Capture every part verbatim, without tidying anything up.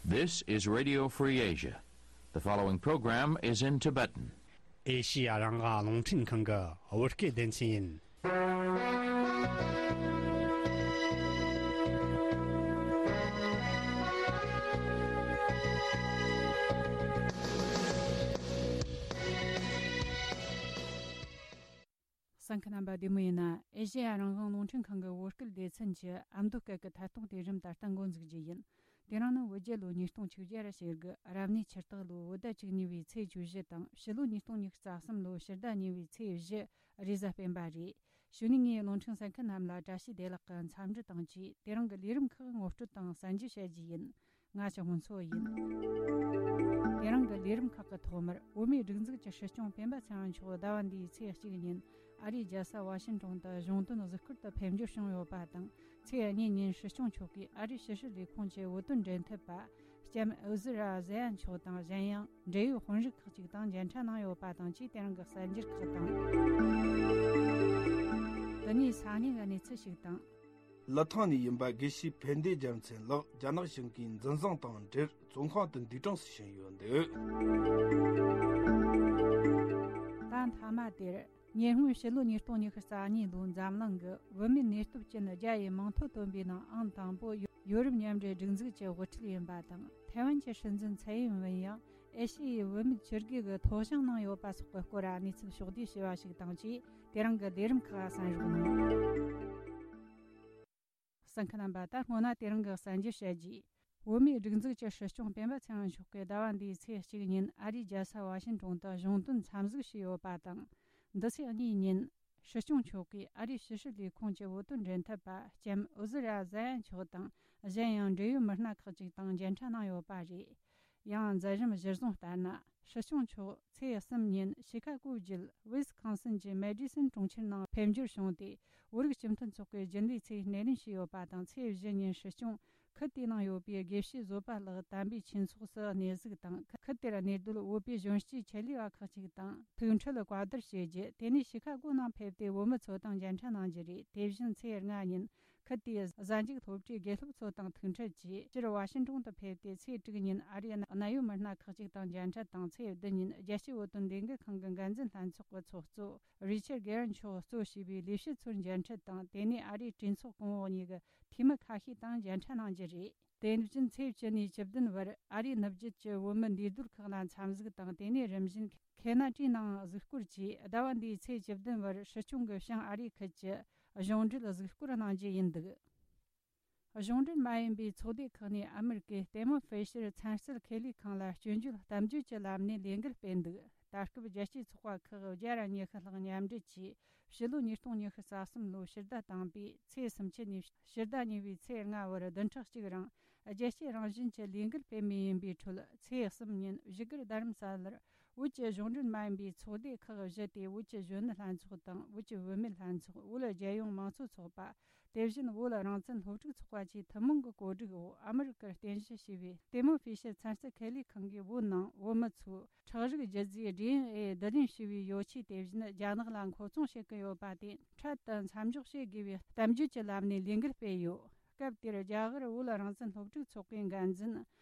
This is Radio Free Asia. The following program is in Tibetan. ཨེ་ཤི་ཡ་རང་དབང་རླུང་འཕྲིན་ཁང་གི་བོད་སྐད་སྡེ་ཚན་ཡིན། གསན་མཁན་རྣམ་པ་བདེ་མོ་ཡིན་ན། ཨེ་ཤེ་ཡ་རང་དབང་རླུང་འཕྲིན་ཁང་གི་བོད་སྐད་སྡེ་ཚན་གྱི་ཨ་མདོ་སྐད་ཀྱི་ཐད་གཏོང་དེ་རིམ་ད་ལྟ་འགོ་འཛུགས་རྒྱུ་ཡིན། དེ་རིང་ནི་བོད་རྒྱལ་ལོ་ཉིས་སྟོང་ཆིག་བརྒྱ་ར་ཞེ་དགུ་རབ་གནས་ཆུ་སྟག་ལོ་བོད་ཟླ་བཅུ་གཉིས་པའི་ཚེས་བཅུ་བཞི་དང་། ཕྱི་ལོ་ཉིས་སྟོང་ཉི་ཤུ་རྩ་གསུམ་ལོ་ཕྱི་ཟླ་གཉིས་པའི་ཚེས་བཞི་རེས་གཟའ་སྤེན་པ་རེད། གཞུག་ནས་ངས་རླུང་འཕྲིན་གསན་མཁན་རྣམས་ལ་བཀྲ་ཤིས་བདེ་ལེགས་ཀྱི་འཚམས་འདྲི་དང་བཅས། དེ་རིང་གི་ལས་རིམ་ཁག་ངོ་སྤྲོད་དང་གསན་རྒྱུ་བྱ་རྒྱུ་ཡིན། ང་ཆུ་སྔོན་འཚོ་ཡིན། དེ་རིང་གི་ལས་རིམ་ཁག་གི་ཐོག་མར། བོད་མིའི་སྒྲིག་འཛུགས་ཀྱི་སྲིད་སྐྱོང་སྤེན་པ་ཚེ་རིང་མཆོག་ཟླ་བ་འདིའི་ཚེས་གཅིག་ཉིན་ཨ་རིའི་རྒྱལ་ས་ཝ་ཤིན་ཏོན་དུ་གཞུང་དོན་གཟིགས་སྐོར་དུ་ཕེབས་འབྱོར་བྱུང་ཡོད་པ་དང་། ཚེས་གཉིས་ཉིན་སྲིད་སྐྱོང་མཆོག་གིས་ཨ་རིའི་ཕྱི་སྲིད་ལས་ཁུངས་ཀྱི་བོད་དོན་འབྲེལ་མཐུད་པ། ལྕམ་ཨུ་ཟི་ར་ཟེ་ཡ་མཆོག་དང་། གཞན་ཡང་འབྲེལ་ཡོད་དཔོན་རིགས་ཁག་ཅིག་དང་མཇལ་འཕྲད་གནང་ཡོད་པ་དང་བཅས། དེ་རིང་གི་གསར་འགྱུར་ཁག་དང་། དེ་ནས་ས་གནས་ཀྱི་གནས་ཚུལ་ཞིག་དང་། ལི་ཐང་ནས་ཡིན་པ་དགེ་བཤེས་ཕན་བདེ་རྒྱལ་མཚན་ལགས་རྒྱ་ནག་གཞུང་གིས་འཛིན་བཟུང་དང་འབྲེལ་བཙོན་ཁང་དུ་འདུག་གྲངས་སུ་ཕྱིན་ཡོད་འདུག་ད་མཐའ་མ་དེར། ཉེ་སྔོན་ཕྱི་ལོ་ཉིས་སྟོང་ཉི་ཤུ་རྩ་གཉིས་ལོའི་འཛམ་གླིང་གི་བུད་མེད་ནུས་སྟོབས་ཅན་བརྒྱ་ཡི་མིང་ཐོ་བཏོན་པའི་ནང་ཨང་དང་པོ་ཡོ་རོབ་མཉམ་འབྲེལ་སྒྲིག་འཛུགས་ཀྱི་དབུ་ཁྲིད་ཡིན་པ་དང་། ཐའེ་ཝན་གྱི་སྲིད་འཛིན་ཚའེ་ཡིན་ཝེན་ཡང་ཨེ་ཤི་ཡའི་བུད་མེད་ཕྱི་རྒྱལ་གྱི་ཐོ་བྱང་གནང་ཡོད་པ་སོགས་ཀྱི་སྐོར་གནས་ཚུལ་ཕྱོགས་བསྡུས་བྱས་པ་ཞིག་དང་བཅས། དེ་རིང་གི་ལས་རིམ་ཁག་གསན་རོགས་གནང་། གསན་མཁན་རྣམ་པ། ད་སྔོན་ན་དེ་རིང་གི་གསར་འགྱུར་བཤད་རྒྱུ། བོད་མིའི་སྒྲིག་འཛུགས་ཀྱི་སྲིད་སྐྱོང་སྤེན་པ་ཚེ་རིང་མཆོག་གིས་ཟླ་བ་འདིའི་ཚེས་གཅིག་ཉིན་ཨ་རིའི་རྒྱལ་ས་ཝ་ཤིན་ཏོན་དུ་གཞུང་དོན་འཚམས་གཟིགས་བྱས་ཡོད་པ་དང་། འདི་ཚེས་གཉིས་ཉིན་སྲིད་སྐྱོང་མཆོག་གིས་ཨ་རིའི་ཕྱི་སྲིད་ལས་ཁུངས་ཀྱི་བོད་དོན་འབྲེལ་མཐུད་པ་ལྕམ་ཨུ་ཟི་ར་ཟ་ཡ་མཆོག་དང་། གཞན་ཡང་འབྲེལ་ཡོད་མི་སྣ་ཁག་ཅིག་དང་མཇལ་འཕྲད་གནང་ཡོད་པ་རེད། ཡང་མཛད་རིམ་གཞིར་བཟུང་ལྟར་ན། སྲིད་སྐྱོང་མཆོག་ཚེས་གསུམ་ཉིན་ཤི་ཁ་གོ་བརྒྱུད་ཝི་སི་ཁོན་སིན་གྱི་མེ་ཌི་སོན་གྲོང་ཁྱེར་ནང་ཕེབས་འབྱོར་བྱུང་སྟེ། བོད་རིགས་སྤྱི་མཐུན་ཚོགས་ཀྱི་རྒྱུན་ལས་ཚོས་སྣེ་ལེན་བྱས་ཡོད་པ་དང་། ཚེས་བཞི་ཉིན་སྲིད་སྐྱོང་ཁུལ་དེའི་ནང་ཡོད་པའི་དགེ་བཤེས་བཟོད་པ་ལགས་དམ་པའི་ཆོས་ཚོགས་སུ་གནས་གཟིགས་དང་། ཁུལ་དེར་གནས་སྡོད་བོད་པའི་གཞོན་སྐྱེས་ཆེད་ལས་པ་ཁག་ཅིག་དང་ཐུག་འཕྲད་བཀའ་བསྡུར་བྱས་རྗེས། དེ་ནས་ཤི་ཁ་གོ་ནང་ཕེབས་ཏེ་བོད་མི་ཚོ་དང་མཇལ་འཕྲད་གནང་རྒྱུ་རེད། དེ་བཞིན་ཚེས་ལྔ་ཉིན་ཁུལ་དེའི་གཟའ་མཇུག་སློབ་གྲྭའི་དགེ་སློབ་ཚོ་དང་ཐུག་འཕྲད་ཀྱིས་སྤྱིར་ཝ་ཤིང་ཏོན་དུ་ཕེབས་ཏེ། ཚེས་དྲུག་ཉིན་ཨ་རིའི་གནད་ཡོད་མི་སྣ་ཁག་ཅིག་དང་མཇལ་འཕྲད་དང་། ཚེས་བདུན་ཉིན་རྒྱལ་སྤྱིའི་བོད་དོན་ལས་འགུལ་ཁང་གི་འགན་འཛིན་ལྷན་ཚོགས་ཀྱི་ཚོགས་གཙོ་རི་ཆར་གེ་རན་མཆོག་གཙོ་བྱས་པའི་ལས་བྱེད་ཚོར་མཇལ་འཕྲད་དང་། དེ་ནས་ཨ་རིའི་གྲོས་ཚོགས་གོང་འོག་གཉིས་ཀྱི་འཐུས་མི་ཁ་ཤས་དང་མཇལ་འཕྲད་གནང་རྒྱུ་རེད། དེ་བཞིན་ཚེས་བཅུ་ནས་བཅུ་བདུན་བར་ཨ་རིའི་ནུབ་རྒྱུད་ཀྱི་བོད་མི་འདུས་སྡོད་ཁག་ལ་འཚམས་གཟིགས་དང་། དེ་ནས་རིམ་བཞིན་ཁེ་ན་ཌའི་ནང་གཟིགས་སྐོར་གྱིས། ཟླ་བ་འདིའི་ཚེས་བཅུ་བདུན་བར་སྲིད་སྐྱོང་གི་བྱང་ཨ་རིའི་ཁུལ་གྱི་གཞུང་འབྲེལ་གཟིགས་སྐོར་གནང་རྒྱུ་ཡིན་འདུག་གཞུང་འབྲེལ་མ་ཡིན་པའི་ཚོགས་སྡེ་ཁག་ནས་ཨ་མེ་རི་ཀའི་ལྟད་མོ་ཕི་ཤར་ཚན་རྩལ་ཁེ་ལས་ཁང་ལ་སྐྱོན་བརྗོད་གཏམ་བརྗོད་ཀྱི་ལམ་ནས་ལས་འགུལ་སྤེལ་འདུག་ད་སྐབས་རྒྱལ་སྤྱིའི་ཚོགས་པ་ཁག་བརྒྱ་ར་ཉི་ཤུ་ལྷག་མཉམ་འབྲེལ་གྱིས། ཕྱི་ལོ་ཉིས་སྟོང་ཉི་ཤུ་རྩ་གསུམ་ལོའི་ཕྱི་ཟླ་དང་པོའི་ཚེས་སུམ་ཅུ་ནས་ཕྱི་ཟླ་གཉིས་པའི་ཚེས་ལྔ་བར་བདུན་ཕྲག་གཅིག་རིང་རྒྱལ་སྤྱིའི་རང་བཞིན་གྱི་ལས་འགུལ་སྤེལ་མུས་ཡིན་པའི་ཁྲོད། ཚེས་གསུམ་ཉིན་བཞུགས་སྒར་རྡ་རམ་ས་ལར་བོད་ཀྱི་གཞུང་འབྲེལ་མ་ཡིན་པའི་ཚོགས་སྡེ་ཁག་བཞི་སྟེ། བོད་ཀྱི་གཞོན་ནུ་ལྷན་ཚོགས་དང་། བོད་ཀྱི་བུད་མེད་ལྷན་ཚོགས། བོད་རྒྱལ་ཡོངས་མང་གཙོ་ཚོགས་པ། དེ་བཞིན་བོད་རང་བཙན་སློབ་ཕྲུག་ཚོགས་པ་བཅས་ཐུན་མོང་གི་གོ་སྒྲིག་འོག་ཨ་མི་རི་ཀར་རྟེན་གཞི་བྱས་པའི་ལྟད་མོ་ཕི་ཤར་ཚན་རྩལ་ཁེ་ལས་ཁང་གིས་བོད་ནང་བོད་མི་ཚོས་ཁྲག་རིགས་རྒྱུ་རྫས་ཌི་ཨེན་ཨེ་བསྡུ་ལེན་བྱས་པའི་ཡོ་ཆས་དེ་བཞིན་རྒྱ་ནག་ལ་མཁོ་ཚོང་བྱེད་ཀྱི་ཡོད་པ་དེ་འཕྲལ་དུ་མཚམས་འཇོག་བྱེད་དགོས་པའི་གཏམ་བརྗོད་ཀྱི་ལམ་ནས་ལས་འགུལ་སྤེལ་ཡོད། སྐབས་དེར་རྒྱ་གར་བོད་རང་བཙན་སློབ་ཕྲུག་ཚོགས་པའི་འགན་འཛིན་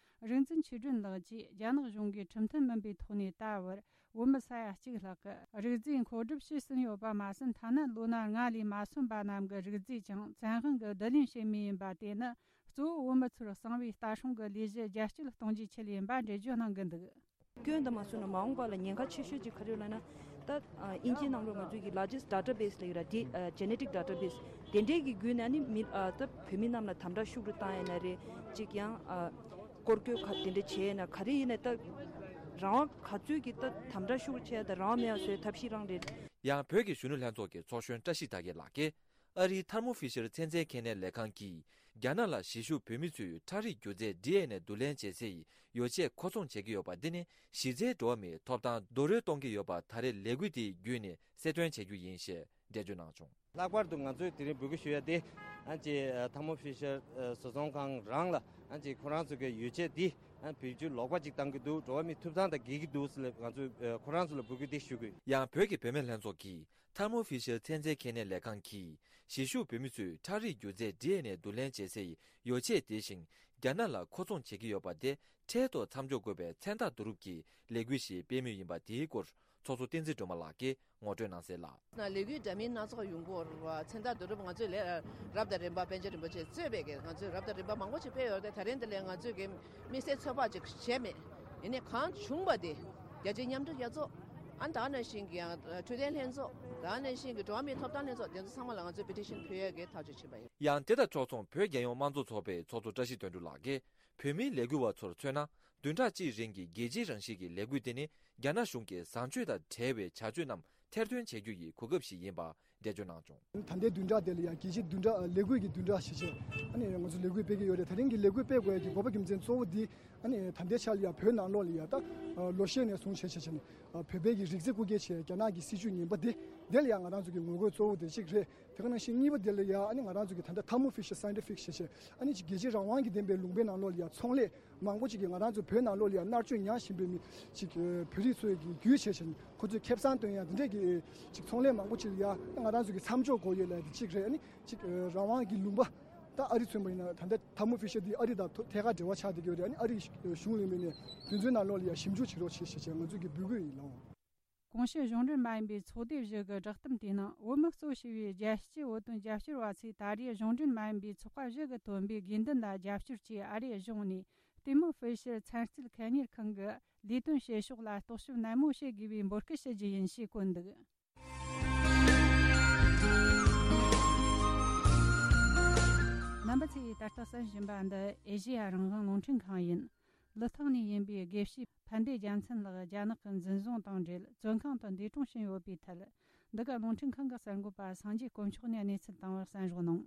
རིག་འཛིན་ཆོས་སྒྲོན་ལགས་ཀྱིས། རྒྱ་ནག་གཞུང་གིས་ཁྲིམས་མཐུན་མིན་པའི་ཐོག་ནས་ད་བར་བོད་མི་ས་ཡ་གཅིག་ལྷག་གི་རིག་རྫས་མཁོ་སྒྲུབ་བྱས་ཟིན་ཡོད་པ་མ་ཟད། ཐ་ན་ལོ་ན་ལྔ་ལས་མ་སོན་པ་རྣམས་ཀྱི་རིག་རྫས་ཀྱང་བཙན་དབང་གིས་བསྡུ་ལེན་བྱེད་མུས་ཡིན་པ། དེ་ནི་གཙོ་བོ་བོད་མི་ཚོར་གསང་བའི་ལྟ་སྲུང་གི་ལས་གཞི་རྒྱ་སྐྱེད་གཏོང་རྒྱུའི་ཆེད་ཡིན་པ་འགྲེལ་བརྗོད་གནང་གི་འདུག་སྐྱོན་དུ་མ་སོང་ན་མ་འོངས་པ་ལ་ཉེན་ཁ་ཆེ་ཤོས་ཅིག་ག་རེ་ཡོད་ལབ་ན། ད་ཨ་དབྱིན་ཇིའི་ནང་ལོགས་ང་ཚོའི་གི་largest database ལབ་ཡོད་ར། དེ་ཨ་genetic database དེ་འདྲའི་གི་བརྒྱུད་ནས་ནི་མི་ཨ་ད་བོད་མི་རྣམས་ལ་དམ་དྲག་ཤུགས་རུ་བཏང་ཡ་ན་རེད། ཅིག་ཡང་ཨ་སྐོར་སྐྱོད་ག་དེ་འདྲ་བྱས་ན་ག་རེ་ཡིན་ན། ད་རང་དབང་ག་ཚོད་ཀྱི་ད་དམ་དྲག་ཤུགས་རུ་བྱས་ད་རང་དབང་མེད་ཡ་བཟོས་ཐབས་ཤེས་རང་རེད། ཡང་བོད་ཀྱི་གཞོན་ནུ་ལྷན་ཚོགས་ཀྱི་ཚོགས་གཞོན་བཀྲ་ཤིས་དར་རྒྱས་ལགས་ཀྱིས། ཨ་རིའི་ཐར་མོ་ཕི་ཤར་ཚན་རྩལ་ཁེ་ནའི་ལས་ཁང་གིས། རྒྱ་ནག་ལ་གཞིས་བཞུགས་བོད་མི་ཚོའི་ཁྲག་རིགས་རྒྱུ་རྫས་ཌི་ཨེན་ཨེ་བསྡུ་ལེན་བྱེད་སའི་ཡོ་ཆས་མཁོ་ཚོང་བྱེད་ཀྱི་ཡོད་པ་འདི་ནི་གཞི་རྩའི་འགྲོ་བ་མིའི་ཐོབ་ཐང་རྡོག་རོལ་གཏོང་གི་ཡོད་པ་ད་རེས་ལས་འགུལ་དེའི་བརྒྱུད་ནས་གསལ་སྟོན་བྱ་རྒྱུ་ཡིན་ཞེས་འགྲེལ་བརྗོད་གནང་བྱུང་། ལྷག་པར་དུ་ང་ཚོས་དེ་རིང་འབོད་སྐུལ་ཞུ་ཡ་དེ་ཨ་ཅེ་ཐར་མོ་ཕི་ཤར་བཟོ་ཚོང་ཁང་རང་ལ་ཨ་ཅེ་ཁོ་རང་ཚོ་གི་ཡོ་ཆས་འདི་ཨ་བེད་སྤྱོད་ལོག་པ་ཅིག་བཏང་གི་འདུག་འགྲོ་བ་མིའི་ཐོབ་ཐང་དང་འགལ་གྱི་འདུག་ཟེར་ལ་ང་ཚོས་ཁོ་རང་ཚོ་ལ་འབོད་སྐུལ་དེ་ཞུ་དགོས། ཡང་བོད་ཀྱི་བུད་མེད་ལྷན་ཚོགས་ཀྱིས། ཐར་མོ་ཕི་ཤར་ཚན་རྩལ་ཁེ་ནའི་ལས་ཁང་གིས་གཞིས་བཞུགས་བོད་མི་ཚོའི་ཁྲག་རིགས་རྒྱུ་རྫས་ཌི་ཨེན་ཨེ་བསྡུ་ལེན་བྱེད་སའི་ཡོ་ཆས་དེ་བཞིན་ རྒྱ་ནག་ལ་མཁོ་ཚོང་བྱེད་ཀྱི་ཡོད་པ་དེ་འཕྲལ་དུ་མཚམས་འཇོག་དགོས་པའི་མཚན་རྟགས་བསྡུ་རུབ་ཀྱི་ལས་འགུལ་ཞིག་སྤེལ་མུས་ཡིན་པ་དེའི་སྐོར་ཚོགས་གཙོ་བསྟན་འཛིན་སྒྲོལ་མ་ལགས་ཀྱིས་ངོ་སྤྲོད་གནང་གསལ་ལ། ལས་འགུལ་འདྲ་མིན་སྣ་ཚོགས་ཡོང་གི་ཡོད་རེད་བ། མཚན་རྟགས་བསྡུ་རུབ་ང་ཚོས་ལས་རབ་དང་རིམ་པ་པཎ་ཆེན་རིན་པོ་ཆེས་གཙོས་པའི་གི་ང་ཚོས་རབ་དང་རིམ་པ་མང་པོ་ཞིག་སྤེལ་ཡོད་རེད་དེ། ད་རིང་འདི་ལས་ང་ཚོས་གི་དམིགས་བསལ་ཚོད་དཔག་ཅིག་བྱས་མེད། ཡིན་ནའི་གང་བྱུང་བ་དེ་རྒྱ་ཆེའི་མཉམ་འབྲེལ་རྒྱལ་ཚོགས། ཨ་ནི་ད་ག་ནང་བཞིན་གྱི་ཡང་འཕྲོད་བསྟེན་ལྷན་ཚོགས། ད་ག་ནང་བཞིན་གྱི་འགྲོ་བ་མིའི་ཐོབ་ཐང་ལྷན་ཚོགས། དེ་ཚོ་ཚང་མ་ལ་ང་ཚོས་པེ་ཊི་ཤན་ཕུལ་ཡས་ཀྱི་ཐག་གཅོད་བྱས་པ་ཡིན། ཡང་དེ་དང་ཕྱོགས་མཚུངས་བོད་རྒྱལ་ཡོངས་དམངས་གཙོ་ཚོགས་པའི་ཚོགས་གཙོ་བཀྲ་ཤིས་དོན་གྲུབ་ལགས་ཀྱིས། བོད་མིའི་ལས་འགུལ་བ་ཚོར་མཚོན་ན། བདུན་ཕྲག་གཅིག་རིང་གི་རྒྱལ་སྤྱིའི་རང་བཞིན་གྱི་ལས་འགུལ་དེ་ནི་རྒྱ་ནག་གཞུང་གི་བཟང་སྤྱོད་དང་བྲལ་བའི་བྱ་སྤྱོད་རྣམས་ཐེར་འདོན་བྱེད་རྒྱུ་ཡི་གོ་སྐབས་ཤིག་ཡིན་པ་འགྲེལ་བརྗོད་གནང་བྱུང་། ད་ལྟའི་བདུན་ཕྲག་དེ་ལ་ཡང་རྒྱལ་སྤྱིའི་བདུན་ཕྲག་ལས་འགུལ་གྱི་བདུན་ཕྲག་ཞེས་བྱས་ཨ་ནི་ང་ཚོ་ལས་འགུལ་སྤེལ་གྱི་ཡོད་རེད། དེ་རིང་གི་ལས་འགུལ་སྤེལ་དགོས་ཡ་གི་དགོས་པ་རྒྱུ་མཚན་གཙོ་བོ་འདི་ཨ་ནི་ད་ལྟའི་ཆར་ལ་ཡང་བོད་ནང་ལོགས་ལ་ཡང་ད་ལོ་ཤས་ནས་བཟུང་བྱས་བྱས་བྱས་ནས་བོད་པའི་གི་རིགས་རྫས་རྐུ་འཁྱེར་བྱས་རྒྱ་ནག་གི་སྲིད་བྱུས་ངན་པ་འདི་དེ་ལ་ཡང་ང་རང་ཚོ་གི་ངོ་རྒོལ་གཙོ་བོ་དེ་གཅིག་རེད། དེ་ག་ནང་བཞིན་གཉིས་པ་དེ་ལ་ཡང་ཨ་ནི་ང་རང་ཚོ་གི་ད་ལྟ་ཐར་མོ་ཕི་ཤར་སའེན་ཊི་ཕིག་ཞེས་བྱས་ཨ་ནི་ཅིག་རྒྱལ་སྤྱིའི་རང་དབང་གི་ལྡན་པའི་ལུང་པའི་ནང་ལོགས་ལ་ཡང་ཚོང་ལས་མང་པོ་ཅིག་གིས་ང་རང་ཚོ་བོད་ནང་ལོགས་ལ་ཡང་མནར་གཅོད་མྱངས་བཞིན་པའི་མི་ཅིག་བོད་རིགས་ཚོའི་གི་རྒྱུད་བྱས་བྱས་ནས་ཁོ་ཚོས་ཁེ་བཟང་བཏོན་ཡ་འདི་འདྲས་ཀྱི་ཅིག་ཚོང་ལས་མང་པོ་ཅིག་ལ་ཡང་ང་རང་ཚོ་གི་མཚམས་འཇོག་དགོས་ཡོད་ལབ་ཡ་འདི་གཅིག་རེད། ཨ་ནི་ཅིག་རང་དབང་གི་ལུང་པ་ད་ཨ་རི་མཚོན་པ་ཡིན་ན་ད་ལྟ་ཐར་མོ་ཕི་ཤར་འདི་ཨ་རི་དང་ཐད་ཀར་འབྲེལ་བ་ཆགས་བསྡད་ཀྱི་ཡོད་རེད། ཨ་ནི་ཨ་རི་གཞུང་ལས་མི་ནས་དུས་ཚོད་ནང་ལོགས་ལ་ཡང་ཞིབ་འཇུག་བྱེད་རོགས་བྱེད་ཞེས་བྱས་ང་ཚོས་ཀྱི་འབོད་སྐུལ་ཡིན་ལགས། གོང་ཞུས་གཞུང་འབྲེལ་མ་ཡིན་པའི་ཚོགས་སྡེ་བཞི་གི་བསྒྲགས་གཏམ་དེའི་ནང་བོད་མི་གཙོ་བྱས་པའི་རྒྱལ་སྤྱིའི་བོད་དོན་རྒྱབ་སྐྱོར་བ་ཚོས་ད་རེས་གཞུང་འབྲེལ་མ་ཡིན་པའི་ཚོགས་པ་བཞི་གིས་བཏོན་པའི་དགོས་འདུན་ལ་རྒྱབ་སྐྱོར་གྱིས་ཨ་རིའི་གཞུང་ནས་ལྟད་མོ་ཧྥེ་ཤར་ཚན་རྩལ་ཁེ་གཉེར་ཁང་གི་ལས་དོན་བྱེད་ཕྱོགས་ལ་རྟོག་ཞིབ་ནན་མོ་བྱེད་དགོས་པའི་འབོད་སྐུལ་ཞུ་རྒྱུ་ཡིན་ཞེས་བཀོད་འདུག། རྣམ་པ་ཚོས་ད་ལྟ་གསན་བཞིན་པ་འདི་ཨེ་ཤེ་ཡ་རང་དབང་རླུང་འཕྲིན་ཁང་ཡིན། ལི་ཐང་ནས་ཡིན་པའི་དགེ་བཤེས་ཕན་བདེ་རྒྱལ་མཚན་ལགས་རྒྱ་ནག་གི་འཛིན་བཟུང་དང་འབྲེལ་བཙོན་ཁང་དུ་འདས་གྲོངས་ཕྱིན་ཡོད་པའི་ཐད། འདི་ག་རླུང་འཕྲིན་ཁང་གི་གསར་འགོད་པ་སངས་རྒྱས་དཀོན་མཆོག་ནས་གནས་ཚུལ་བཏང་བར་གསན་རོགས་གནང་།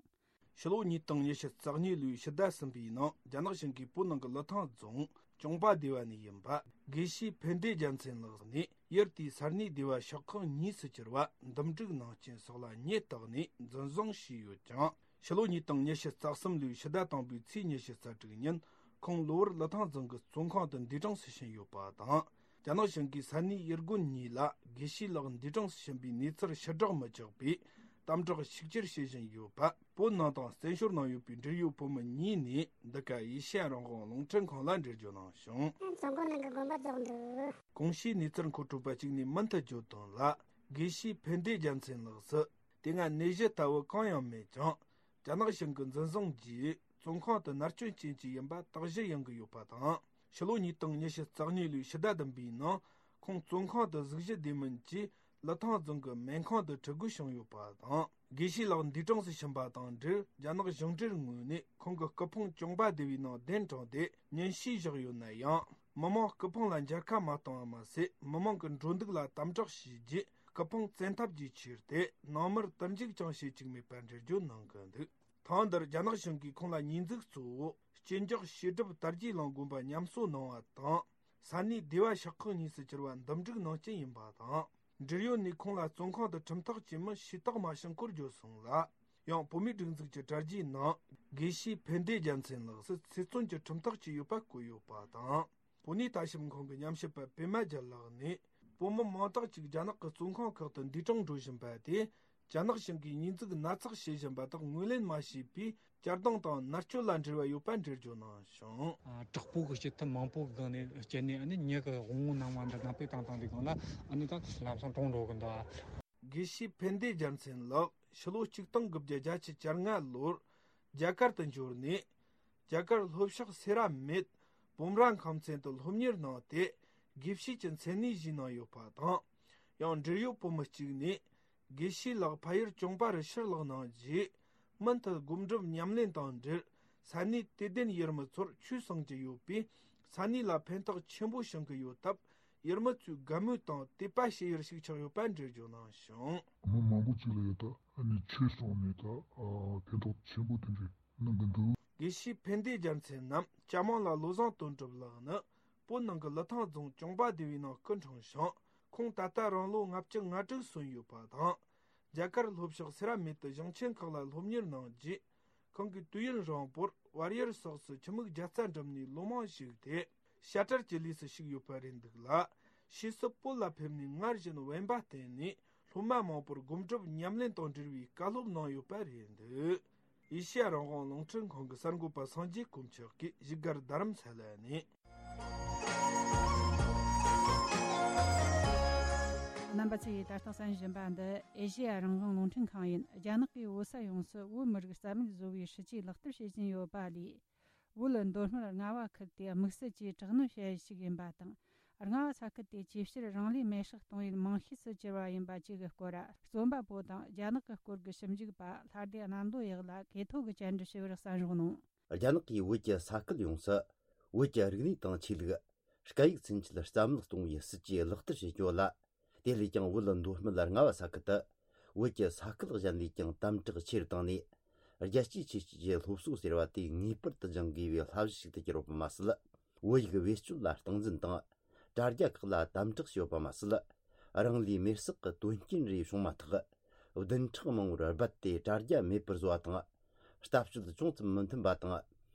ཕྱི་ལོ་ཉིས་སྟོང་ཉི་ཤུ་རྩ་གཉིས་ལོའི་ཕྱི་ཟླ་གསུམ་པའི་ནང་རྒྱ་ནག་གཞུང་གིས་བོད་ནང་གི་ལི་ཐང་རྫོང་གྱོང་པ་སྡེ་བ་ནས་ཡིན་པ་དགེ་བཤེས་ཕན་བདེ་རྒྱལ་མཚན་ལགས་ནས་ཡུལ་དེའི་ས་གནས་སྡེ་བ་ཤོག་ཁག་གཉིས་སུ་གྱུར་བ་འདུམ་འགྲིག་ནང་རྐྱེན་སོགས་ལ་ཉེས་བཏགས་ནས་འཛིན་བཟུང་བྱས་ཡོད་ཅིང་། ཕྱི་ལོ་ཉིས་སྟོང་ཉི་ཤུ་རྩ་གསུམ་ལོའི་ཕྱི་ཟླ་དང་པོའི་ཚེས་ཉི་ཤུ་རྩ་དྲུག་ཉིན་ཁོང་གློ་བུར་ལི་ཐང་རྫོང་གི་བཙོན་ཁང་དུ་འདས་གྲོངས་སུ་ཕྱིན་ཡོད་པ་དང་། རྒྱ་ནག་གཞུང་གིས་ས་གནས་ཡུལ་དགོན་གཉིས་ལ་དགེ་བཤེས་ལགས་འདས་གྲོངས་སུ་ཕྱིན་པའི་གནས་ཚུལ་ཕྱིར་བསྒྲགས་མི་བྱེད་པའི་དམ་དྲག་ཤུགས་ཆེར་བྱེད་བཞིན་ཡོད་པ། བོད་ནང་དང་བཙན་བྱོལ་ནང་ཡོད་པའི་འབྲེལ་ཡོད་བོད་མི་གཉིས་ནས་འདི་ག་ཨེ་ཤེ་ཡ་རང་དབང་རླུང་འཕྲིན་ཁང་ལ་འགྲེལ་བརྗོད་གནང་བྱུང་། རྫོང་སྒོ་ནང་གི་དགོན་པ་རྫོགས་འདུག། གོང་ཞུས་གནས་ཚུལ་མཁོ་སྤྲོད་པ་གཅིག་ནས་མུ་མཐུད་བརྗོད་དོན་ལ། དགེ་བཤེས་ཕན་བདེ་རྒྱལ་མཚན་ལགས་སུ། དེ་སྔ་ནད་གཞི་ལྟ་བུ་གང་ཡང་མེད་ཀྱང་། རྒྱ་ནག་གཞུང་གི་འཛིན་བཟུང་རྗེས་བཙོན་ཁང་དུ་མནར་གཅོད་ཅན་ཞིག་ཡིན་པ་དག་གཞི་ཡོང་གི་ཡོད་པ་དང་། ཕྱི་ལོ་ཉིས་སྟོང་ཉི་ཤུ་རྩ་གཉིས་ལོའི་ཕྱི་ཟླ་བདུན་པའི་ནང་ཁོང་བཙོན་ཁང་དུ་གཟུགས་གཞི་བདེ་མིན་གྱིས་ལི་ཐང་རྫོང་གི་སྨན་ཁང་དུ་ཁྲིད་དགོས་བྱུང་ཡོད་པ་དང་། དགེ་བཤེས་ལགས་འདས་གྲོངས་སུ་ཕྱིན་པ་དང་འབྲེལ་རྒྱ་ནག་གཞུང་འབྲེལ་ངོས་ནས་ཁོང་གི་སྐུ་ཕུང་གྱོང་པ་སྡེ་བའི་ནང་གདན་དྲངས་ཏེ་ཉིན་ཞིག་བཞག་ཡོད་ན་ཡང་། མི་མང་སྐུ་ཕུང་ལ་མཇལ་ཁ་མ་བཏང་བ་མ་ཟད། མི་མང་གི་འགྲོ་འདུག་ལ་དམ་དྲག་བྱས་རྗེས། སྐུ་ཕུང་བཙན་ཐབས་ཀྱིས་ཁྱེར་ཏེ་ནང་མིར་དུར་འཇུག་ཀྱང་བྱེད་བཅུག་མེད་པར་འགྲེལ་བརྗོད་གནང་གི་འདུག། ཐེངས་འདིར་རྒྱ་ནག་གཞུང་གིས་ཁོང་ལ་ཉེས་འཛུགས་གཙོ་བོ་གཅིན་སྐྱོགས་ཤེས་སྒྲུབ་དར་རྒྱས་གླིང་དགོན་པ་ཉམས་གསོ་གནང་བ་དང་། ས་གནས་སྡེ་བ་ཤོག་ཁག་གཉིས་སུ་གྱུར་བ་འདུམ་འགྲིག་གནང་རྐྱེན་ཡིན་པ་དང་། འབྲེལ་ཡོད་ནས་ཁོང་ལ་བཙོན་ཁང་དུ་ཁྲིམས་ཐག་བཅད་མིན་ཞུས་དག་མ་བྱུང་སྐོར་བརྗོད་སོང་ལ། ཡང་བོད་མིའི་སྒྲིག་འཛུགས་ཀྱི་དྲ་རྒྱའི་ནང་དགེ་བཤེས་ཕན་བདེ་རྒྱལ་མཚན་ལགས་སུ་ཚེ་བཙོན་གྱི་ཁྲིམས་ཐག་བཅད་ཡོད་པ་བཀོད་ཡོད་པ་དང་། བོད་གནས་ལྟ་ཞིབ་ཁང་གི་ཉམས་ཞིབ་པ་པད་མ་རྒྱལ་ལགས་ནས། བོད་མི་མང་དག་ཅིག་རྒྱ་ནག་གི་བཙོན་ཁང་ཁག་ཏུ་འདས་གྲོངས་འགྲོ་བཞིན་པ་དེ། རྒྱ་ནག་གཞུང་གིས་ཉེས་འཛུགས་སྣ་ཚོགས་བྱེད་བཞིན་པ་དག་ངོས་ལེན་མ་བྱས་པའི་བསྐྱར་ལྡང་དང་མནར་གཅོད་ལ་འབྲེལ་བ་ཡོད་པ་འགྲེལ་བརྗོད་གནང་བྱུང་། ཨ། དྲག་པོ་གི་སྤྱི་ཐབས་མང་པོ་གི་སྒང་ནས་སྤྱད་ནས། ཨ་ནི་མྱི་གི་དབང་བོ་སྣང་བ་འདི་ནང་པའི་བཏང་བཏང་དུས་སྒང་ལ། ཨ་ནི་ད་ལམ་སང་གྲོངས་འགྲོ་གི་འདུག། དགེ་བཤེས་ཕན་བདེ་རྒྱལ་མཚན་ལགས་ཕྱི་ལོ་ཆིག་སྟོང་དགུ་བརྒྱ་བརྒྱད་ཅུ་གྱ་ལྔ་ལོར་རྒྱ་གར་དུ་འབྱོར་ནས། རྒྱ་གར་ལྷོ་ཕྱོགས་སེ་ར་མེད་སྤོམ་ར་ཁམས་ཚན་དུ་སློབ་གཉེར་གནང་སྟེ། དགེ་བཤེས་ཀྱི་མཚན་གནས་བཞེས་གནང་ཡོད་པ་དང་། ཡང་འབྲེལ་ཡོད་བོད་མི་གཅིག་ནས། དགེ་བཤེས་ལགས་ཕ་ཡུལ་གྱོང་པ་རུ་ཕྱིར་ལོག་གནང་རྗེས། མུ་མཐུད་སྒོམ་སྒྲུབ་ཉམས་ལེན་དང་འབྲེལ། ས་གནས་དད་ལྡན་ཡུལ་མི་ཚོར་ཆོས་གསུང་གི་ཡོད་པས། ས་གནས་ལ་ཕན་ཐོགས་ཆེན་པོ་བྱུང་གི་ཡོད་སྟབས། ཡུལ་མི་ཚོས་དགའ་མོས་དང་དད་པ་བྱེད་ཡུལ་ཞིག་ཆགས་ཡོད་པ་འགྲེལ་བརྗོད་གནང་བྱུང་། མི་མང་པོ་ཅིག་ལ་ཡོད་ད། ཨ་ནི་ཆོས་གསུངས་ནས་ད། ཨ། ཕན་ཐོགས་ཆེན་པོ་དེ་འདྲ་གནང་གི་འདུག། དགེ་བཤེས་ཕན་བདེ་རྒྱལ་མཚན་ནམ་ཅ་མང་ལ་བློ་བཟང་དོན་གྲུབ་ལགས་ནི། བོད་ནང་གི་ལི་ཐང་རྫོང་གྱོང་པ་སྡེ་བའི་ནང་སྐུ་འཁྲུངས་ཤིང་། ཁོང་ད་ལྟ་རང་ལོ་ལྔ་བཅུ་ང་དྲུག་སོན་ཡོད་པ་དང་། རྒྱ་གར་ལྷོ་ཕྱོགས་སེ་ར་མེད་དུ་གཞུང་ཆེན་ཁག་ལ་སློབ་གཉེར་གནང་རྗེས། ཁོང་གིས་དུས་ཡུན་རིང་པོར་བལ་ཡུལ་སོགས་སུ་ཁྱིམ་མིག་བརྒྱ་རྩ་འགྲིམས་ནས་ལོ་མང་བཞུགས་ཏེ། བཤད་གྲྭར་གྱི་ལས་སུ་ཞུགས་ཡོད་པ་རེད་འདུག་ལ། ཕྱིས་སུ་བོད་ལ་ཕེབས་ནས་སྔར་བཞིན་དབེན་པ་བསྟེན་ནས་སློབ་མ་མང་པོར་སྒོམ་སྒྲུབ་ཉམས་ལེན་དང་འབྲེལ་བའི་བཀའ་སློབ་གནང་ཡོད་པ་རེད་འདུག། ཨེ་ཤེ་ཡ་རང་དབང་རླུང་འཕྲིན་ཁང་གི་གསར་འགོད་པ་སངས་རྒྱས་དཀོན་མཆོག་གིས་བཞུགས་སྒར་རྡ་རམ་ས་ལ་ནས། རྣམ་པ་ཚོས་ད་ལྟ་གསན་བཞིན་པ་འདི་ཨེ་ཤེ་ཡ་རང་དབང་རླུང་འཕྲིན་ཁང་ཡིན། རྒྱ་ནག་གིས་བོད་ས་ཡོངས་སུ་བོད་མི་རིགས་རྩ་མེད་བཟོ་བའི་སྲིད་ཇུས་ལག་བསྟར་བྱེད་བཞིན་ཡོད་པ་ལས། བོད་མདོ་སྨད་རྔ་བ་ཁུལ་དེ་དམིགས་བསལ་གྱིས་དྲག་གནོན་བྱ་ཡུལ་ཞིག་ཡིན་པ་དང་། རྔ་བ་ས་ཁུལ་དེ་ཅིའི་ཕྱིར་རང་ལུས་མེར་སྲེག་གཏོང་ཡུལ་རྨང་ཤུལ་དུ་གྱུར་བ་ཡིན་པ་བཅས་ཀྱི་སྐོར། རྩོམ་པ་པོ་དང་རྒྱ་ནག་གི་སྐོར་གྱི་ཞིབ་འཇུག་པ་ལྷ་སྡེ་གནམ་མདོ་གཡག་ལགས་གོ་ཐོས་ཀྱིས་བཅར་འདྲི་ཞུས་པར་གསན་རོགས་གནང་། རྒྱ་ནག་གིས་བོད་ཀྱི་ས་ཁུལ་ཡོངས་སུ་བོད་ཀྱི་རིག་གནས་དང་ཆོས་ལུགས། སྐད་ཡིག་ཚུན་ཆད་རྩ་མེད་གཏོང་བའི་སྲིད་ཇུས་ལག་བསྟར་བྱེད་རྒྱུ་ལ། དེ་ལས་ཀྱང་བོད་མདོ་སྨད་རྔ་བ་ས་ཁུལ་དུ་བོད་ཀྱི་ས་ཁུལ་གཞན་ལས་ཀྱང་དམ་དྲག་ཆེ་རུ་བཏང་ནས། རྒྱལ་གཅེས་ཆེ་བསྟོད་ཀྱི་སློབ་གསོ་ཟེར་བ་དེ་ངེས་པར་དུ་སྦྱང་དགོས་པའི་བསླབ་གཞི་ཞིག་ཏུ་གྱུར་ཡོད་པ་མ་ཟད། བོད་ཡིག་བེད་སྤྱོད་ལ་སྟངས་འཛིན་དང་། དྲ་རྒྱ་ཁག་ལ་དམ་དྲག་བྱས་ཡོད་པ་མ་ཟད། རང་ལུས་མེར་སྲེག་གི་དོན་རྐྱེན་རེ་བྱུང་མ་ཐག་བདུན་ཕྲག་མང་པོར་རྦད་དེ་དྲ་རྒྱ་མེད་པར་བཟོ་བ་དང་། ལྟ་སྤྱོད་ཅུང་ཙམ་མི་མཐུན་པ་དང་།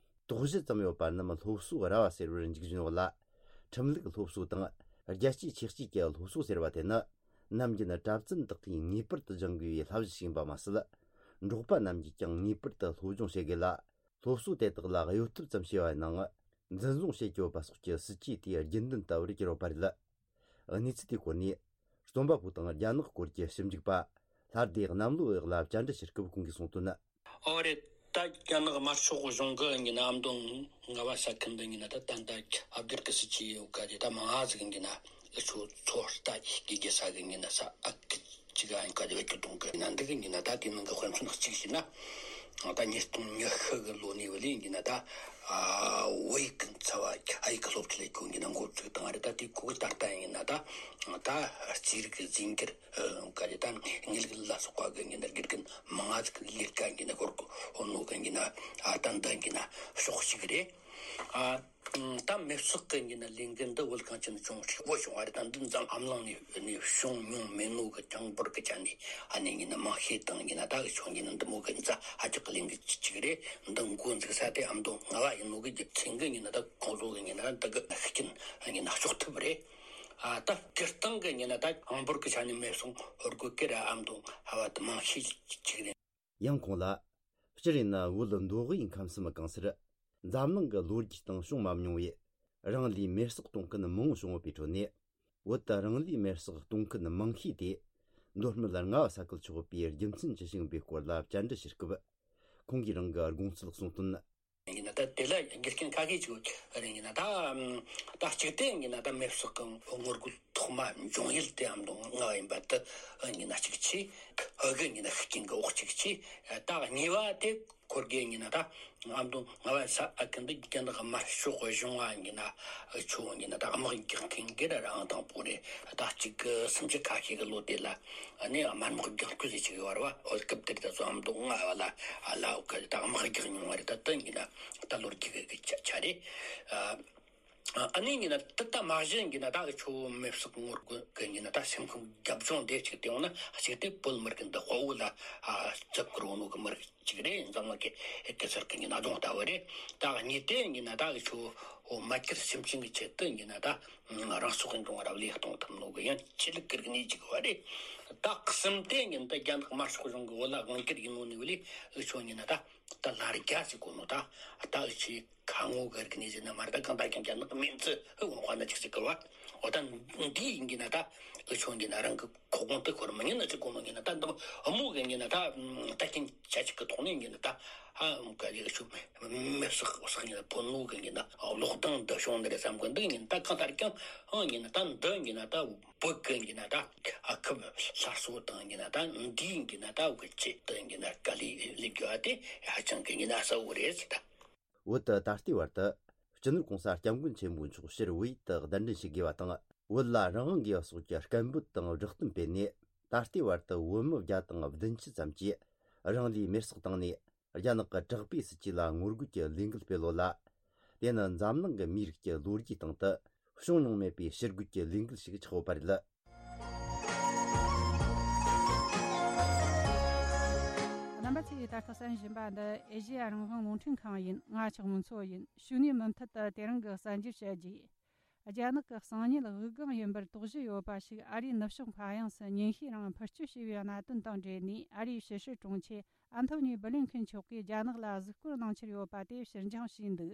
དོགས་གཞི་ཙམ་ཡོད་པ་རྣམས་སློབ་གསོ་ར་བ་ཟེར་བར་འཇུག་བཞིན་ཡོད་ལ། ཁྲིམས་ལུགས་སློབ་གསོ་དང་རྒྱལ་གཅེས་ཆེ་བསྟོད་ཀྱི་སློབ་གསོ་ཟེར་བ་དེ་ནི། ནམ་རྒྱུན་གྲྭ་བཙུན་དག་གིས་ངེས་པར་དུ་སྦྱང་དགོས་པའི་བསླབ་གཞི་ཞིག་ཡིན་པ་མ་ཟད། འབྲོག་པ་རྣམས་ཀྱིས་ཀྱང་ངེས་པར་དུ་སློབ་སྦྱོང་བྱེད་དགོས་ལ། སློབ་གསོ་དེ་དག་ལ་གཡོལ་ཐབས་ཙམ་བྱས་པ་ཡིན་ནའང་། འཛིན་བཟུང་བྱེད་དགོས་པ་སོགས་ཀྱི་སྲིད་ཇུས་དེའི་རྒྱུན་ལྡན་ལྟ་བུར་གྱུར་ཡོད་པ་རེད། གནས་ཚུལ་དེའི་སྐོར་ནས། རྩོམ་པ་པོ་དང་རྒྱ་ནག་སྐོར་གྱི་ཞིབ་འཇུག་པ། ལྷ་སྡེ་གནམ་ལོ་གཡག་ལ་བཅར་འདྲི་ཞུ་སྐབས་ཁོང་གིས་གསུངས་དོན། ཨོ་རེད། ད་རྒྱ་ནག་དམར་ཤོག་གཞུང་གི་ཡིན་ན་ཨ་མདོ་རྔ་བ་ས་ཁུལ་འདི་ཡིན་ན་ད་ད་ད་ཨ་བསྒྱུར་གི་སྲིད་ཇུས་ཡོད་ག་དེ་ད་མང་ང་ཟིག་ཡིན་ན་ཨུ་ཆོ་ཚོ་ལྟ་ཡི་གི་ས་གི་ཡིན་ན་ས་ཨ་ཁི་ཅི་ག་ཡིན་ག་དེ་བ་ཁྱོད་གཏོང་གི་ཡིན་ན་འདི་གི་ཡིན་ན་ད་དེ་ནང་གི་དཔེ་མཚོན་གཅིག་བྱས་ན། ད་ཉིས་སྟོང་ཉི་ཤུ་གི་ལོ་ནས་བ་ལས་ཡིན་ན་ད་ཨ་བོད་ཡིག་གི་འཚབ་བ་ཨ་ཡིག་གི་སློབ་ཁྲིད་ལས་ཁུངས་ཡིན་ན་འགོ་བཙུགས་བཏང་བ་རེད། ད་དེ་ཁོ་གི་ད་ལྟ་ཡིན་ན་ད་ད་རྩིས་རིག་གི་རྫས་འགྱུར། ག་རེ་ད་དངུལ་ལག་ལ་སོགས་པ་གི་ཡིན་ན་དགེ་རྒན་མང་ང་ཟིག་ལས་ཀ་ཡིན་ན་སྐོར་གོ་ནོ་གི་ཡིན་ན་ཨ་ད་འདི་ཡིན་ན་ཕྱོགས་གཅིག་རེད། ཨ་ད་མེ་སོག་གི་ཡིན་ན་ལས་འགུལ་འདི་བོད་གངས་ཅན་ལྗོངས་ཧྲིལ་བོ་བྱུང་བ་རེད། ད་འདི་འཛམ་གླིང་ནས་ནས་བྱུང་མྱོང་མེད་ནོ་གི་གྲངས་འབོར་གི་ཆ་ནས་ཨ་ནི་ཡིན་ན་མང་ཤས་དང་ཡིན་ན་ད་གི་ཆོ་ཡིན་ན་འདི་མོ་གི་འཛམ་ཧ་ཅང་གི་ལས་འགུལ་གཅིག་རེད། འདི་འགོ་འཛུགས་ས་དེ་ཨ་མདོ་རྔ་བ་ཡིན་ནོ་གི་རྒྱུ་མཚན་གི་ཡིན་ན་ད་ཁོང་ཚོ་གི་ཡིན་ན་འདི་གི་ཤུགས་རྐྱེན་ཡིན་ན་གཅོག་ཐུབ་རེད། ཨ་ད་སྤྱིར་བཏང་གི་ཡིན་ན་ད་གྲངས་འབོར་གི་ཆ་ནས་མེ་སོང་ཧོར་གོ་ཀེ་ར་ཨ་མདོ་ཧ་བ་དུ་མང་ཤས་ཅིག་རེད། ཡང་ཁོང་ལ། སྤྱིར་ཡིན་ན་བོད་མདོ་དབུས་ཁམས་གསུམ་གང་སར། འཛམ་གླིང་གི་ལོ་རྒྱུས་སྟེང་བྱུང་མ་མྱོང་བའི། རང་ལུས་མེར་སྲེག་གཏོང་མཁན་མང་བོ་བྱུང་ཡོད་པའི་ཁྲོད་ནས། བོད་དུ་རང་ལུས་མེར་སྲེག་གཏོང་མཁན་མང་ཤོས་དེ། མདོ་སྨད་རྔ་བ་ས་ཁུལ་ཆགས་པའི་རྒྱུ་མཚན་ཅི་ཞིག་ཡིན་པའི་སྐོར་ལ་བཅར་འདྲི་ཞུ་སྐབས། ཁོང་གིས་རང་གི་དགོངས་ཚུལ་གསུངས་དོན། ཡིན་ན་ད་དེ་ལ་རྒྱུ་རྐྱེན་ཁ་ཤས་ཅིག་ཡོད་རེད། ཡིན་ན་ད་ཨམ་ད་གཅིག་དེ་ཡིན་ན་ད་མེ་སོག་གི་ངོ་རྒོལ་ཐོག་མ་འབྱུང་ཡུལ་དེ་ཨ་མདོ་རྔ་བ་ཡིན་པ་དེ་ཡིན་ན་གཅིག་བྱས། ཨ་གི་ཡིན་ན་ཤུགས་རྐྱེན་གི་འོག་གཅིག་བྱས། ད་གཉིས་པ་དེ་ཁོར་གི་ཡིན་ན་ད་ཨ་མདོ་རྔ་བ་ས་ཨ་ཁུལ་འདི་རྒྱ་ནག་དམར་ཤོག་གཞུང་ང་ཡིན་ན་ཆོ་ཡིན་ན་ད་དམག་རྒྱག་མཁན་གི་ར་རང་དང་པོ་རེད། ད་གཅིག་གི་སུམ་ཅུ་ཁ་ཤས་ཀྱི་ལོ་དེ་ལ་ནི་དམར་དམག་རྒྱག་རྒྱུ་ཟེར་ཅིག་ཡོད་རེད་བ། འོ་སྐབས་དེར་ད་ཚོ་ཨ་མདོ་རྔ་བ་ལ་ཨ་ལ་འོ་གི་ད་དམག་རྒྱག་མྱོང་བ་རེད། ད་དེ་ཡིན་ན་ད་ལོ་རྒྱུས་གི་ཆ་ཆ་རེད། ཨ་ནི་ཡིན་ན་ད་ད་མ་གཞི་ཡིན་ན་ད་ཆོ་མེ་སོག་ངོ་རྒོལ་གི་ཡིན་ན་ད་སེམས་ཁམས་རྒྱབ་ལྗོངས་དེ་གཅིག་དེ་ཡོང་ན་གཅིག་དེ་བོད་མི་རིགས་འདི་དཔའ་བོ་ལ་ཨ་བརྩི་བཀུར་འོ་ནོ་གི་མི་རིགས་གཅིག་རེད། འཛམ་གླིང་གི་ཨེ་གེ་སར་གི་ཡིན་ན་གདོང་ལྟ་བུ་རེད། ད་གཉིས་དེ་ཡིན་ན་ད་ཆོ་འོ་མ་ཁྱེར་སེམས་ཅན་གི་ཆེད་དུ་ཡིན་ན་ད་རང་སྲོག་གི་འབྱུང་བ་རབ་ལས་གཏོང་ཐུབ་ནོ་གི་ཡང་ཆེད་ལུགས་གི་རིག་གནས་གཅིག་བ་རེད། ད་གསུམ་དེ་ཡིན་ན་ད་རྒྱ་ནག་དམར་ཤོག་གཞུང་གི་བོད་ལ་དབང་སྒྱུར་ཡིན་ནོ་ནི་བ་ལས་ཨེ་ཆོ་ཡིན་ན་ད་ད་ལར་རྒྱ་ཟེར་གོ་ནོ་ད་ད་ཨེ་ཆེ། ཁ་ངོ་གི་རིག་གནས་ཟེར་ན་མ་རེད། ད་གང་ལྟར་ཀྱང་རྒྱ་ནག་གི་མིང་ཚིག་ཧི་འོང་བ་ན་ཅིག་ཟེར་གི་བ། འོ་ད་འདི་ཡིན་གྱི་ན་ད་ཨུ་ཆོ་ཡིན་གྱི་ན་རང་གི་ཁོ་དགོངས་དེ་ཁོར་མི་ཉན་ན་ཅིག་གོ་ནོ་ཡིན་ན་ད་འདི་ཨུ་མོ་གི་ཡིན་གྱི་ན་ད་ད་རྐྱེན་ཆ་ཅིག་གི་ཐོག་ནས་ཡིན་གྱི་ན་ད་ཧ་འོང་ག་ཡི་ཨུ་ཆོ་མེ་བསྲེགས་བསྲེགས་ཡིན་ན་ཕོ་ནོ་གི་ཡིན་གྱི་ན་གློག་ལྡང་འདི་བྱུང་འདི་རེད་བསམ་གི་འདུག་ཡིན་ད་གང་ལྟར་ཀྱང་ཨང་ཡིན་ན་ད་འདི་ཡིན་གྱི་ན་ད་བོད་གི་ཡིན་གྱི་ན་ད་ཨ་ཁུ་སླར་གསོ་དང་ཡིན་གྱི་ན་ད་འདི་ཡིན་གྱི་ན་ད་འུ་གི་ཆེད་དུ་ཡིན་གྱི་ན་དཀའ་ལས་ལས་དགོས་པ་དེ་ཧ་ཅང་གི་ཡིན་ན་གསལ་བོ་རེད་ཟེར་ད། བོད་དུ་ད་ལྟའི་བར་དུ་སྤྱི་ནོར་གོང་ས་སྐྱབས་མགོན་ཆེན་པོ་མཆོག་ཕྱིར་བོད་ཡུལ་དུ་གདན་འདྲེན་བྱེད་དགོས་པ་དང་། བོད་ལ་རང་དབང་དགོས་པ་སོགས་ཀྱི་སྐད་འབོད་དང་བསྒྲགས་གཏམ་སྤེལ་ནས། ད་ལྟའི་བར་དུ་བོད་མི་བརྒྱ་དང་བདུན་ཅུ་ཙམ་གྱིས་རང་ལུས་མེར་སྲེག་བཏང་ནས། རྒྱ་ནག་གི་དྲག་པོའི་སྲིད་ཇུས་ལ་ངོ་རྒོལ་གྱི་ལས་འགུལ་སྤེལ་ཡོད་ལ། དེ་ནི་འཛམ་གླིང་གི་མིའི་རིགས་ཀྱི་ལོ་རྒྱུས་སྟེང་དུ་བྱུང་མྱོང་མེད་པའི་ཕྱིར་རྒོལ་གྱི་ལས་འགུལ་ཞིག་ཆགས་ཡོད་པ་རེད། རྣམ་པ་ཚོས་ད་ལྟ་གསན་བཞིན་པ་འདི་ཨེ་ཤེ་ཡ་རང་དབང་རླུང་འཕྲིན་ཁང་ཡིན། ང་ཆགས་མུན་མཚོ་ཡིན། ཞུགས་ནས་མུ་མཐུད་དུ་དེ་རིང་གི་གསར་འགྱུར་བཤད་རྒྱུ། རྒྱ་ནག་གི་གསང་ཉུལ་དབུགས་ལྒང་ཡིན་པར་དོགས་གཞི་ཡོད་པ་ཞིག་ཨ་རིའི་ནུབ་ཕྱོགས་མཁའ་དབྱིངས་སུ་ཉིན་ཤས་རིང་འཕུར་སྐྱོད་བྱས་པའི་གནད་དོན་དང་འབྲེལ་ནས། ཨ་རིའི་ཕྱི་སྲིད་དྲུང་ཆེ་ཨན་ཐོ་ནི་སྦི་ལིན་ཁིན་མཆོག་གིས་རྒྱ་ནག་ལ་གཟིགས་སྐོར་གནང་འཆར་ཡོད་པ་དེ་ཕྱིར་འགྱངས་བྱས་འདུག་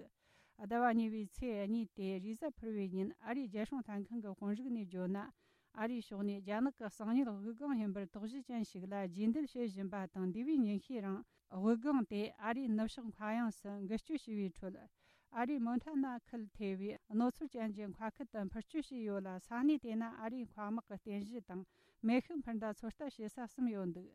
ཟླ་བ་གཉིས་པའི་ཚེས་གཉིས་ཏེ་རེས་གཟའ་ཕུར་བུའི་ཉིན་ཨ་རིའི་རྒྱལ་སྲུང་ལྷན་ཁང་གི་དཔོན་རིགས་ནས་བརྗོད་ན། ཨ་རིའི་ཕྱོགས་ནས་རྒྱ་ནག་གི་གསང་ཉུལ་དབུགས་ལྒང་ཡིན་པར་དོགས་གཞི་ཅན་ཞིག་ལ་རྗེས་འདེད་བྱེད་བཞིན་པ་དང་། འདས་པའི་ཉིན་ཤས་རིང་དབུགས་ལྒང་དེ་ཨ་རིའི་ནུབ་ཕྱོགས་མཁའ་དབྱིངས་སུ་འགུལ་སྐྱོད་བྱས་པའི་ཁྲོད། ཨ་རིའི་མོན་ཐ་ན་ཁུལ་ཐེ་བའི་རྣོ་ཚོར་ཅན་གྱི་མཁའ་ཁུལ་དུ་འཕུར་སྐྱོད་བྱས་ཡོད་ལ། ས་གནས་དེ་ན་ཨ་རིའི་མཁའ་དམག་གི་རྟེན་གཞི་དང་མེ་ཤུགས་འཕུར་མདའ་ཚོད་ལྟ་བྱེད་ས་གསུམ་ཡོད་འདུག་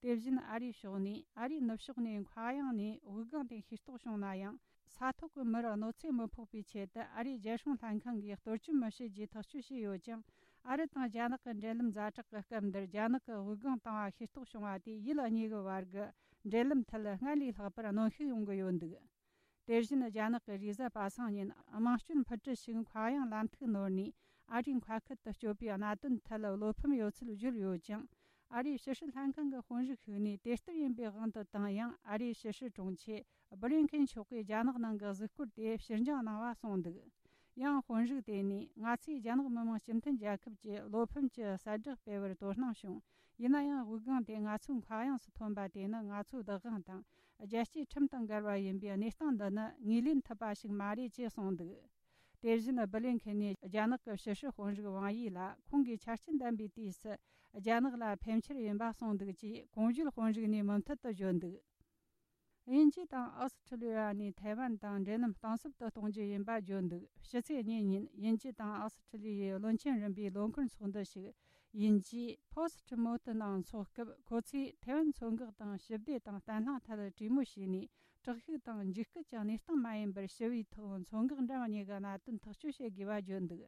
དེ་བཞིན་ཨ་རིའི་ཕྱོགས་ནས་ཨ་རིའི་ནུབ་ཕྱོགས་ནས་མཁའ་དབྱིངས་ནས་དབུགས་ལྒང་དེ་ཤེས་རྟོགས་བྱུང་ན་ཡང་། ས་ཐོག་གི་མིར་གནོད་འཚེ་མི་ཕོག་པའི་ཆེད་དུ་ཨ་རིའི་རྒྱལ་སྲུང་ལྷན་ཁང་གིས་གཏོར་སྐྱོན་མི་བྱེད་ཅེས་ཐག་གཅོད་བྱས་ཡོད་ཀྱང་། ཨ་རི་དང་རྒྱ་ནག་གི་འབྲེལ་ལམ་ཛ་དྲག་གི་སྐབས་འདིར་རྒྱ་ནག་གི་དབུགས་ལྒང་བཏང་བ་ཤེས་རྟོགས་བྱུང་བ་དེས་ཡུལ་གཉིས་ཀྱི་བར་གྱི་འབྲེལ་ལམ་ཐད་སྔར་ལས་ལྷག་པར་གནོན་ཤུགས་ཡོང་གི་ཡོད་འདུག་དེ་བཞིན་རྒྱ་ནག་གི་རེས་གཟའ་པ་སངས་ཉིན་དམངས་སྐྱོར་འཕུར་གྲུ་ཞིག་མཁའ་དབྱིངས་ལམ་ཐིག་ནོར་ནས་ཨ་རིའི་མཁའ་ཁུལ་དུ་སྐྱོད་པའི་གནད་དོན་ཐད་བློ་ཕམ་ཡོད་ཚུལ་བརྗོད་ཡོད་ཅིང་། ཨ་རིའི་ཕྱི་སྲིད་ལྷན་ཁང་གི་དཔོན་རིགས་ཤིག་ནས་དེ་ལྟར་ཡིན་པའི་དབང་དུ་བཏང་ཡང་། ཨ་རིའི་ཕྱི་སྲིད་དྲུང་ཆེ་སྦི་ལིན་ཁིན་མཆོག་གིས་རྒྱ་ནག་ནང་གི་གཟིགས་སྐོར་དེ་ཕྱིར་འགྱངས་གནང་བ་གསུངས་འདུག་ཡང་དཔོན་རིགས་དེ་ནས། ང་ཚོས་རྒྱ་ནག་མི་དམངས་སྤྱི་མཐུན་རྒྱལ་ཁབ་ཀྱི་བློ་ཕམ་གྱི་གསལ་བསྒྲགས་སྤེལ་བར་དོ་སྣང་བྱུང་། ཡིན་ན་ཡང་། དབུགས་ལྒང་དེ་ང་ཚོའི་མཁའ་དབྱིངས་སུ་ཐོན་པ་དེ་ནི་ང་ཚོའི་བདག་དབང་དང་རྒྱལ་སྤྱིའི་ཁྲིམས་དང་འགལ་བ་ཡིན་པས། གནས་སྟངས་འདི་ནི་ངོས་ལེན་ཐུབ་པ་ཞིག་མ་རེད་ཅེས་གསུངས་འདུག་དེ་བཞིན་སྦི་ལིན་ཁེན་ནས་རྒྱ་ནག་གི་ཕྱི་སྲིད་དཔོན་རིགས་ཝང་ཡི་ལ་ཁོང་གིས་ཆ་རྐྱེན་ལྡན་པའི་དུས་སུ་རྒྱ་ནག་ལ་ཕན་ཆེར་ཡིན་པ་གསུངས་འདུག་ཅེས་གོང་བརྗོད་དཔོན་རིགས་ནས་མུ་མཐུད་དུ་བརྗོད་འདུག་དབྱིན་ཇི་དང་ཨོ་སི་ཁྲི་ལི་ཡ་ནས་ཐའེ་ཝན་དང་འབྲེལ་ལམ་གཏིང་ཟབ་ཏུ་གཏོང་རྒྱུ་ཡིན་པ་བརྗོད་འདུག་ཕྱི་ཚེས་གཉིས་ཉིན་དབྱིན་ཇི་དང་ཨོ་སི་ཁྲི་ལི་ཡའི་བློན་ཆེན་རིམ་པའི་ལོ་འཁོར་ཚོགས་འདུ་ཞིག་དབྱིན་ཇིའི་Post Mortem ནང་འཚོགས་སྐབས། ཁོ་ཚོས་ཐའེ་ཝན་མཚོ་འགག་དང་ཞི་བདེ་དང་བརྟན་ལྷིང་ཐད་གྲོས་མོལ་བྱས་ནས། དྲག་ཤུགས་དང་འཇིགས་སྐུལ་གྱི་གནས་སྟངས་མ་ཡིན་པར་ཞི་བའི་ཐོག་མཚོ་འགག་འགྲམ་གཉིས་ཀྱི་གནད་དོན་ཐག་གཅོད་བྱེད་དགོས་པ་བརྗོད་འདུག་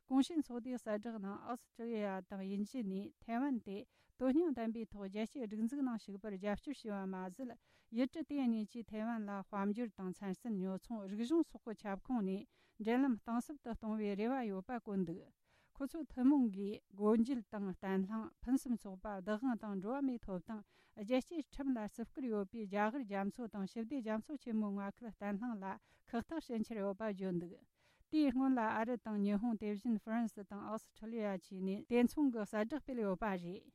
གོང་ཞུས་ཚོགས་འདུའི་གསལ་བསྒྲགས་ནང་ཨོ་སི་ཁྲི་ལི་ཡ་དང་དབྱིན་ཇི་ནས་ཐའེ་ཝན་དེ་དོན་སྙིང་ལྡན་པའི་ཐོག་རྒྱལ་སྤྱིའི་སྒྲིག་འཛུགས་ནང་ཞུགས་པར་རྒྱབ་སྐྱོར་བྱས་པ་མ་ཟད། ཡུལ་གྲུ་དེ་གཉིས་ཀྱིས་ཐའེ་ཝན་ལ་དཔལ་འབྱོར་དང་མཚན་སྲན་ཉོ་ཚོང་། རིག་གཞུང་སོགས་ཀྱི་ཁྱབ་ཁོངས་ནས་འབྲེལ་ལམ་གཏིང་ཟབ་ཏུ་གཏོང་བའི་རེ་བ་ཡོད་པ་བཀོད་འདུག་ཁོ་ཚོའི་ཐུན་མོང་གིས་སྒོ་འབྱེད་དང་བརྟན་ལྷིང་། ཕུན་སུམ་ཚོགས་པ། བདག་དབང་དང་འགྲོ་བ་མིའི་ཐོབ་ཐང་། རྒྱལ་གཅེས་ཁྲིམས་ལ་བརྩི་བཀུར་ཡོད་པའི་རྒྱ་གར་རྒྱ་མཚོ་དང་ཞི་བདེ་རྒྱ་མཚོ་ཆེན་མོའི་མངའ་ཁུལ་བརྟན་ལྷིང་ལ་ཁག་ཐེག་བྱེད་འཆར་ཡོད་པ་བརྗོད་འདུག་དེའི་སྔོན་ལ་ཨ་རི་དང་ཉི་ཧོང་། དེ་བཞིན་ཧྥ་རན་སི་དང་ཨོ་སི་ཁྲི་ལི་ཡ་བཅས་ནས་དེ་མཚུངས་ཀྱི་གསལ་བསྒྲགས་སྤེལ་ཡོད་པ་རེད།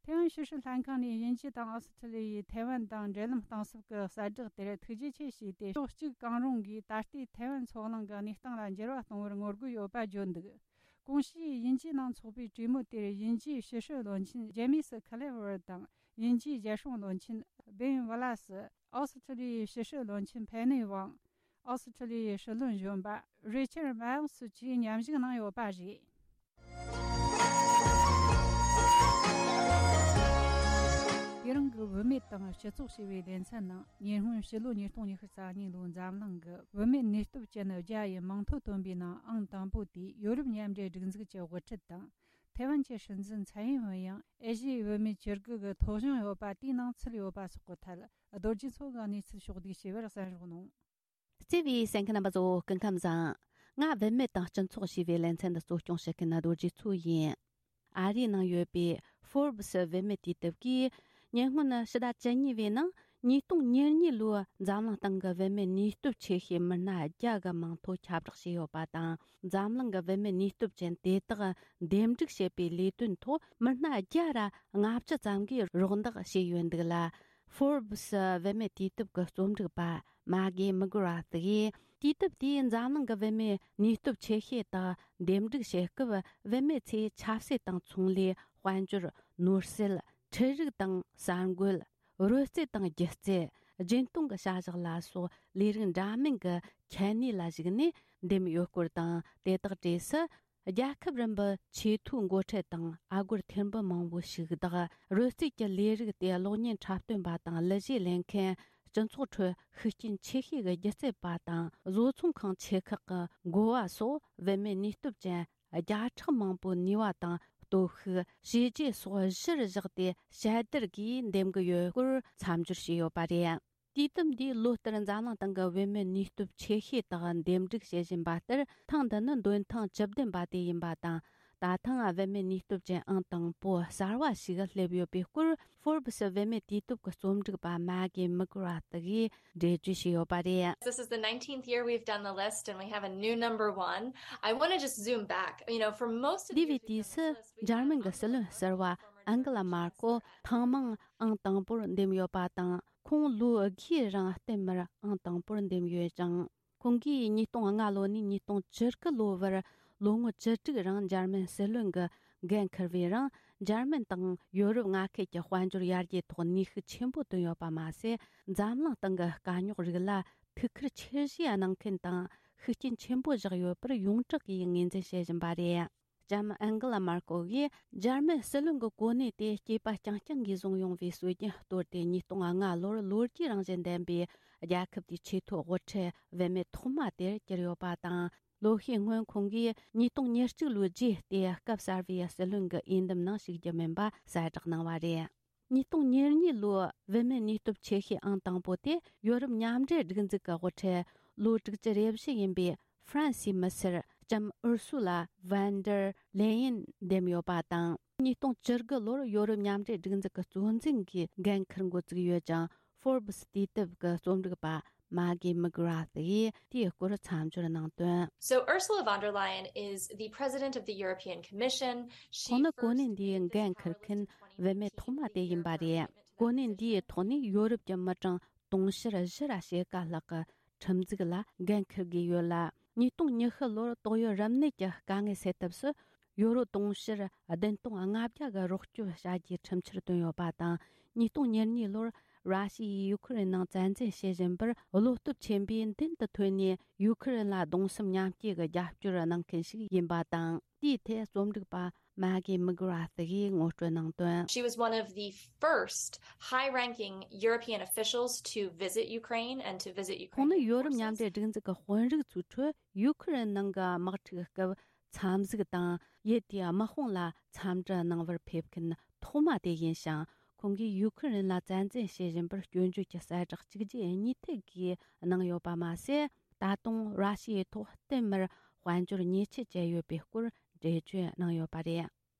ཐའེ་ཝན་ཕྱི་སྲིད་ལྷན་ཁང་ནས་དབྱིན་ཇི་དང་ཨོ་སི་ཁྲི་ལི་ཡའི་ཐའེ་ཝན་དང་འབྲེལ་ལམ་གཏིང་ཟབ་ཀྱི་གསལ་བསྒྲགས་དེར་ཐུགས་རྗེ་ཆེ་ཞུས་ཏེ། ཕྱོགས་གཅིག་གང་རུང་གིས་ད་ལྟའི་ཐའེ་ཝན་མཚོ་གླིང་གི་གནས་སྟངས་ལ་འགྱུར་བ་གཏོང་བར་ངོ་རྒོལ་ཡོད་པ་བརྗོད་འདུག་གོང་ཞུས་དབྱིན་ཇིའི་ནང་འཚོགས་པའི་གྲོས་མོལ་དེར་དབྱིན་ཇིའི་ཕྱི་སྲིད་བློན་ཆེན་ཇེ་མི་སི་ཁ་ལེ་ཝར་དང་། དབྱིན་ཇིའི་རྒྱལ་སྲུང་བློན་ཆེན་བེན་ཝ་ལ་སི། ཨོ་སི་ཁྲི་ལི་ཡའི་ཕྱི་སྲིད་བློན་ཆེན་ཕེ་ནེ་ཝང་། ཨོ་སི་ཁྲི་ལི་ཡའི་སྲིད་བློན་གཞོན་པ་རི་ཆར་མཱལ་སི་བཅས་མཉམ་ཞུགས་གནང་ཡོད་པ་རེད། དེ་རིང་གི་བུད་མེད་དང་སྤྱི་ཚོགས་ཞེས་པའི་ལེ་ཚན་ནང་། ཉེ་སྔོན་ཕྱི་ལོ་ཉིས་སྟོང་ཉི་ཤུ་རྩ་གཉིས་ལོའི་འཛམ་གླིང་གི་བུད་མེད་ནུས་སྟོབས་ཅན་བརྒྱ་ཡི་མིང་ཐོ་བཏོན་པའི་ནང་ཨང་དང་པོ་དེ་ཡོ་རོབ་མཉམ་འབྲེལ་སྒྲིག་འཛུགས་ཀྱི་དབུ་ཁྲིད་དང་། ཐའེ་ཝན་གྱི་སྲིད་འཛིན་ཚའེ་ཡིན་ཝེན་ཡང་ཨེ་ཤི་ཡའི་བུད་མེད་བཅུ་དགུ་གི་ཐོ་གཞུང་ཡོད་པ་དེའི་ནང་ཚུད་ཡོད་པ་སོགས་ཀྱི་ཐད། རྡོ་རྗེ་མཚོ་གིས་གནས་ཚུལ་ཕྱོགས་བསྡུས་བྱས་པར་གསན་རོགས་གནང་། བརྩེ་བའི་གསན་མཁན་རྣམ་པ་ཚོ། སྐུ་ཁམས་བཟང་། ང་བུད་མེད་དང་སྤྱི་ཚོགས་ཞེས་པའི་ལེ་ཚན་འདི་གཙོ་སྐྱོང་བྱེད་མཁན་རྡོ་རྗེ་མཚོ་ཡིན། ཨ་རིའི་ནང་ཡོད་པའི་Forbes་བུད་མེད་དུས་དེབ་ཀྱིས་ཉེ་སྔོན་ཕྱི་ཟླ་བཅུ་གཉིས་པའི་ནང་ཉིས་སྟོང་ཉེར་གཉིས་ལོའི་འཛམ་གླིང་སྟེང་གི་བུད་མེད་ནུས་སྟོབས་ཆེ་ཤོས་མི་སྣ་བརྒྱ་གི་མིང་ཐོ་ཁྱབ་བསྒྲགས་བྱས་ཡོད་པ་དང་། འཛམ་གླིང་གི་བུད་མེད་ནུས་སྟོབས་ཅན་དེ་དག་འདེམས་སྒྲུག་བྱེད་པའི་ལས་དོན་ཐོག་མི་སྣ་བརྒྱ་ར་ལྔ་བཅུ་ཙམ་གྱིས་རོགས་འདེགས་བྱས་ཡོད་འདུག་ལ། Forbes་བུད་མེད་དུས་དེབ་ཀྱི་རྩོམ་སྒྲིག་པ་མ་གྷི་མག་ར་ཐི་ཡིས། དུས་དེབ་དེས་འཛམ་གླིང་གི་བུད་མེད་ནུས་སྟོབས་ཆེ་ཤོས་དག་འདེམས་སྒྲུག་བྱེད་སྐབས། བུད་མེད་ཚོས་ཆབ་སྲིད་དང་ཚོང་ལས། དཔལ་འབྱོར། ནོར་སྲིད། འཕྲུལ་རིག་དང་གསར་འགོད། རོལ་རྩེད་དང་སྒྱུ་རྩལ། སྦྱིན་གཏོང་གི་བྱ་གཞག་ལ་སོགས་ལས་རིགས་འདྲ་མིན་གྱི་ཁྱད་ནུས་ལ་གཞིགས་ནས་འདེམས་ཡོད་སྐོར་དང་། དེ་དག་གྲས་སུ། རྒྱལ་ཁབ་རིམ་པའི་ཆེས་མཐོའི་འགོ་ཁྲིད་དང་། ཨ་སྒོར་ཐེར་འབུམ་མང་པོ་ཞིག་བདག་རོལ་རྩེད་ཀྱི་ལས་རིགས་དེ་གློག་བརྙན་འཁྲབ་སྟོན་པ་དང་། གླུ་གཞས་ལེན་མཁན། སྤྱི་ཚོགས་ཁྲོད་ཤུགས་རྐྱེན་ཆེ་ཤོས་ཀྱི་སྒྱུ་རྩལ་པ་དང་། བཟོ་ཚོང་ཁང་ཆེ་ཁག་གི་འགོ་བ་སོགས་བུད་མེད་ནུས་སྟོབས་ཅན་བརྒྱ་ཕྲག་མང་པོའི་ནུས་པ་དང་། སྟོབས་ཤུགས། བྱས་རྗེས་སོགས་གཞིར་བཞག་སྟེ་དཔྱད་བསྡུར་གྱིས་འདེམས་ཀྱི་ཡོད་སྐོར་མཚམས་སྦྱོར་བྱས་ཡོད་པ་རེད། དུས་དེབ་འདིས་ལོ་ལྟར་འཛམ་གླིང་སྟེང་གི་བུད་མེད་ནུས་སྟོབས་ཆེ་ཤོས་དག་འདེམས་སྒྲུག་བྱེད་བཞིན་པ་ལྟར། ཐེངས་འདི་ནི་འདོན་ཐེངས་བཅུ་བདུན་པ་དེ་ཡིན་པ་དང་། ད་ཐེངས་བུད་མེད་ནུས་སྟོབས་ཅན་ཨང་དང་པོ་གསར་བ་ཞིག་སླེབས་ཡོད་པའི་སྐོར། Forbes་བུད་མེད་དུས་དེབ་ཀྱི་རྩོམ་སྒྲིག་པ་མ་གི་མི་གྷི་ར་ཐི་ཡིས་འགྲེལ་བརྗོད་བྱས་ཡོད་པ་རེད། This is the nineteenth year we've done the list and we have a new number one. I want to just zoom back. You know, for most of འདས་པའི་དུས་སུ་འཇར་མན་གྱི་སྲིད་བློན་ཟུར་པ་ཨན་གི་ལ་མར་ཀོལ་ཐེངས་མང་ཨང་དང་པོར་འདེམས་ཡོད་པ་དང་། ཁོང་ལོ་བརྒྱའི་རིང་བསྟུད་མར་ཨང་དང་པོར་འདེམས་ཡོད་ཅིང་། ཁོང་གིས་ཉིས་སྟོང་ལྔ་ལོ་ནས་ཉིས་སྟོང་བཅུ་དགུ་ལོ་བར་ལོ་ངོ་བཅུ་དྲུག་རིང་འཇར་མན་སྲིད་བློན་གྱི་འགན་འཁུར་བའི་རིང་། འཇར་མན་དང་ཡོ་རོབ་མངའ་ཁུལ་གྱི་དཔལ་འབྱོར་ཡར་རྒྱས་ཐོག་ནུས་ཤུགས་ཆེན་པོ་བཏོན་ཡོད་པ་མ་ཟད། འཛམ་གླིང་སྟེང་གི་དཀའ་རྙོག་རིགས་ལ་ཐུགས་ཁུར་ཆེ་བཞེས་གནང་མཁན་དང་ཤུགས་རྐྱེན་ཆེན་པོ་བཞག་ཡོད་པར་ཡོངས་གྲགས་ཀྱིས་ངོས་འཛིན་བྱེད་བཞིན་པ་རེད། ལྕམ་ཨན་གི་ལ་མར་ཀོལ་གྱིས་འཇར་མན་སྲིད་བློན་གྱི་གོ་གནས་དེ་སྐྱེས་པ་རྐྱང་རྐྱང་གིས་བཟུང་ཡོང་བའི་སྲོལ་རྒྱུན་གཏོར་ཏེ། ཉིས་སྟོང་ལྔ་ལོར་ལོ་རྒྱུས་རང་བཞིན་ལྡན་པའི་རྒྱལ་ཁབ་དེའི་ཆེས་མཐོའི་དབུ་ཁྲིད་བུད་མེད་ཐོག་མ་དེར་གྱུར་ཡོད་པ་དང་། ལོ་ཤས་སྔོན་ཁོང་གིས་ཉིས་སྟོང་ཉེར་གཅིག་ལོའི་རྗེས་ཏེ་སྐབས་གསར་བའི་སྲིད་བློན་གྱི་འོས་འདེམས་ནང་ཞུགས་རྒྱུ་མིན་པ་གསལ་བསྒྲགས་གནང་བ་རེད། ཉིས་སྟོང་ཉེར་གཉིས་ལོའི་བུད་མེད་ནུས་སྟོབས་ཆེ་ཤོས་ཨང་དང་པོ་དེ་ཡོ་རོབ་མཉམ་འབྲེལ་སྒྲིག་འཛུགས་ཀྱི་དབུ་ཁྲིད་ལོ་དྲུག་ཅུ་རེ་བཞི་ཡིན་པའི་ཧྥ་རན་སིའི་མི་སེར་ལྕམ་ཨུར་སུ་ལ་ཝན་ཌར་ལེ་ཡིན་འདེམས་ཡོད་པ་དང་། ཉིས་སྟོང་བཅུ་དགུ་ལོར་ཡོ་རོབ་མཉམ་འབྲེལ་སྒྲིག་འཛུགས་ཀྱི་གཙོ་འཛིན་གྱི་འགན་འཁུར་འགོ་བཙུགས་ཡོད་ཅིང་། Forbes་དུས་དེབ་ཀྱི་རྩོམ་སྒྲིག་པ་མ་གི་མི་གྷི་ར་ཐི་ཡིས་དེའི་སྐོར་མཚམས་སྦྱོར་གནང་དོན། So Ursula von der Leyen is the president of the European Commission. She ཁོང་ནི་གོ་གནས་འདིའི་འགན་འཁུར་མཁན་བུད་མེད་ཐོག་མ་དེ་ཡིན་པ་རེད། གོ་གནས་འདིའི་ཐོག་ནས་ཡོ་རོབ་ཀྱི་མི་གྲངས་དུང་ཕྱུར་བཞི་ར་ཕྱེད་ཀ་ལྷག་གི་ཁྲིམས་འཛུགས་ལ་འགན་འཁུར་དགོས་ཡོད་ལ། ཉིས་སྟོང་ཉི་ཤུ་ལོར་ཏོག་དབྱིབས་རིམས་ནད་ཀྱི་དཀའ་ངལ་སེལ་ཐབས་སུ་ཡོ་རོབ་དུང་ཕྱུར་བདུན་སྟོང་ལྔ་བརྒྱ་གི་རོགས་སྐྱོབ་བྱ་རྒྱུའི་ཁྲིམས་འཆར་བཏོན་ཡོད་པ་དང་། ཉིས་སྟོང་ཉེར་གཉིས་ལོར་ར་ཤི་ཡས་ཡུ་ཁུ་རེན་ནང་བཙན་འཛུལ་བྱེད་བཞིན་པར་བློ་སྟོབས་ཆེན་པོས་མདུན་དུ་ཐོན་ནས། ཡུ་ཁུ་རེན་ལ་གདུང་སེམས་མཉམ་སྐྱེད་ཀྱི་རྒྱབ་སྐྱོར་གནང་མཁན་ཞིག་ཡིན་པ་དང་། དེའི་ཐད་རྩོམ་སྒྲིག་པ་མ་གི་མི་གྷི་ར་ཐི་ཡིས་ངོ་སྤྲོད་གནང་དོན། She was one of the first high-ranking European officials to visit Ukraine and to visit Ukrainian forces. ཁོང་ནི་ཡོ་རོབ་མཉམ་འབྲེལ་སྒྲིག་འཛུགས་ཀྱི་དཔོན་རིགས་ཚོའི་ཁྲོད་ཡུ་ཁུ་རེན་ནང་གི་དམག་འཁྲུག་སྐབས་འཚམས་གཟིགས་དང་། ཡུལ་དེའི་དམག་དཔུང་ལ་འཚམས་འདྲི་གནང་བར་ཕེབས་མཁན་ཐོག་མ་དེ་ཡིན་ཞིང་། ཁོང་གིས་ཡུ་ཁུ་རེན་ལ་བཙན་འཛུལ་བྱེད་བཞིན་པར་སྐྱོན་བརྗོད་ཀྱི་གསལ་བསྒྲགས་གཅིག་རྗེས་གཉིས་མཐུད་ཀྱིས་གནང་ཡོད་པ་མ་ཟད། ད་དུང་ར་ཤི་ཡའི་ཐོག་བསྟུད་མར་དཔལ་འབྱོར་ཉེས་ཆད་བཅད་ཡོད་པའི་སྐོར་འགྲེལ་བརྗོད་གནང་ཡོད་པ་རེད།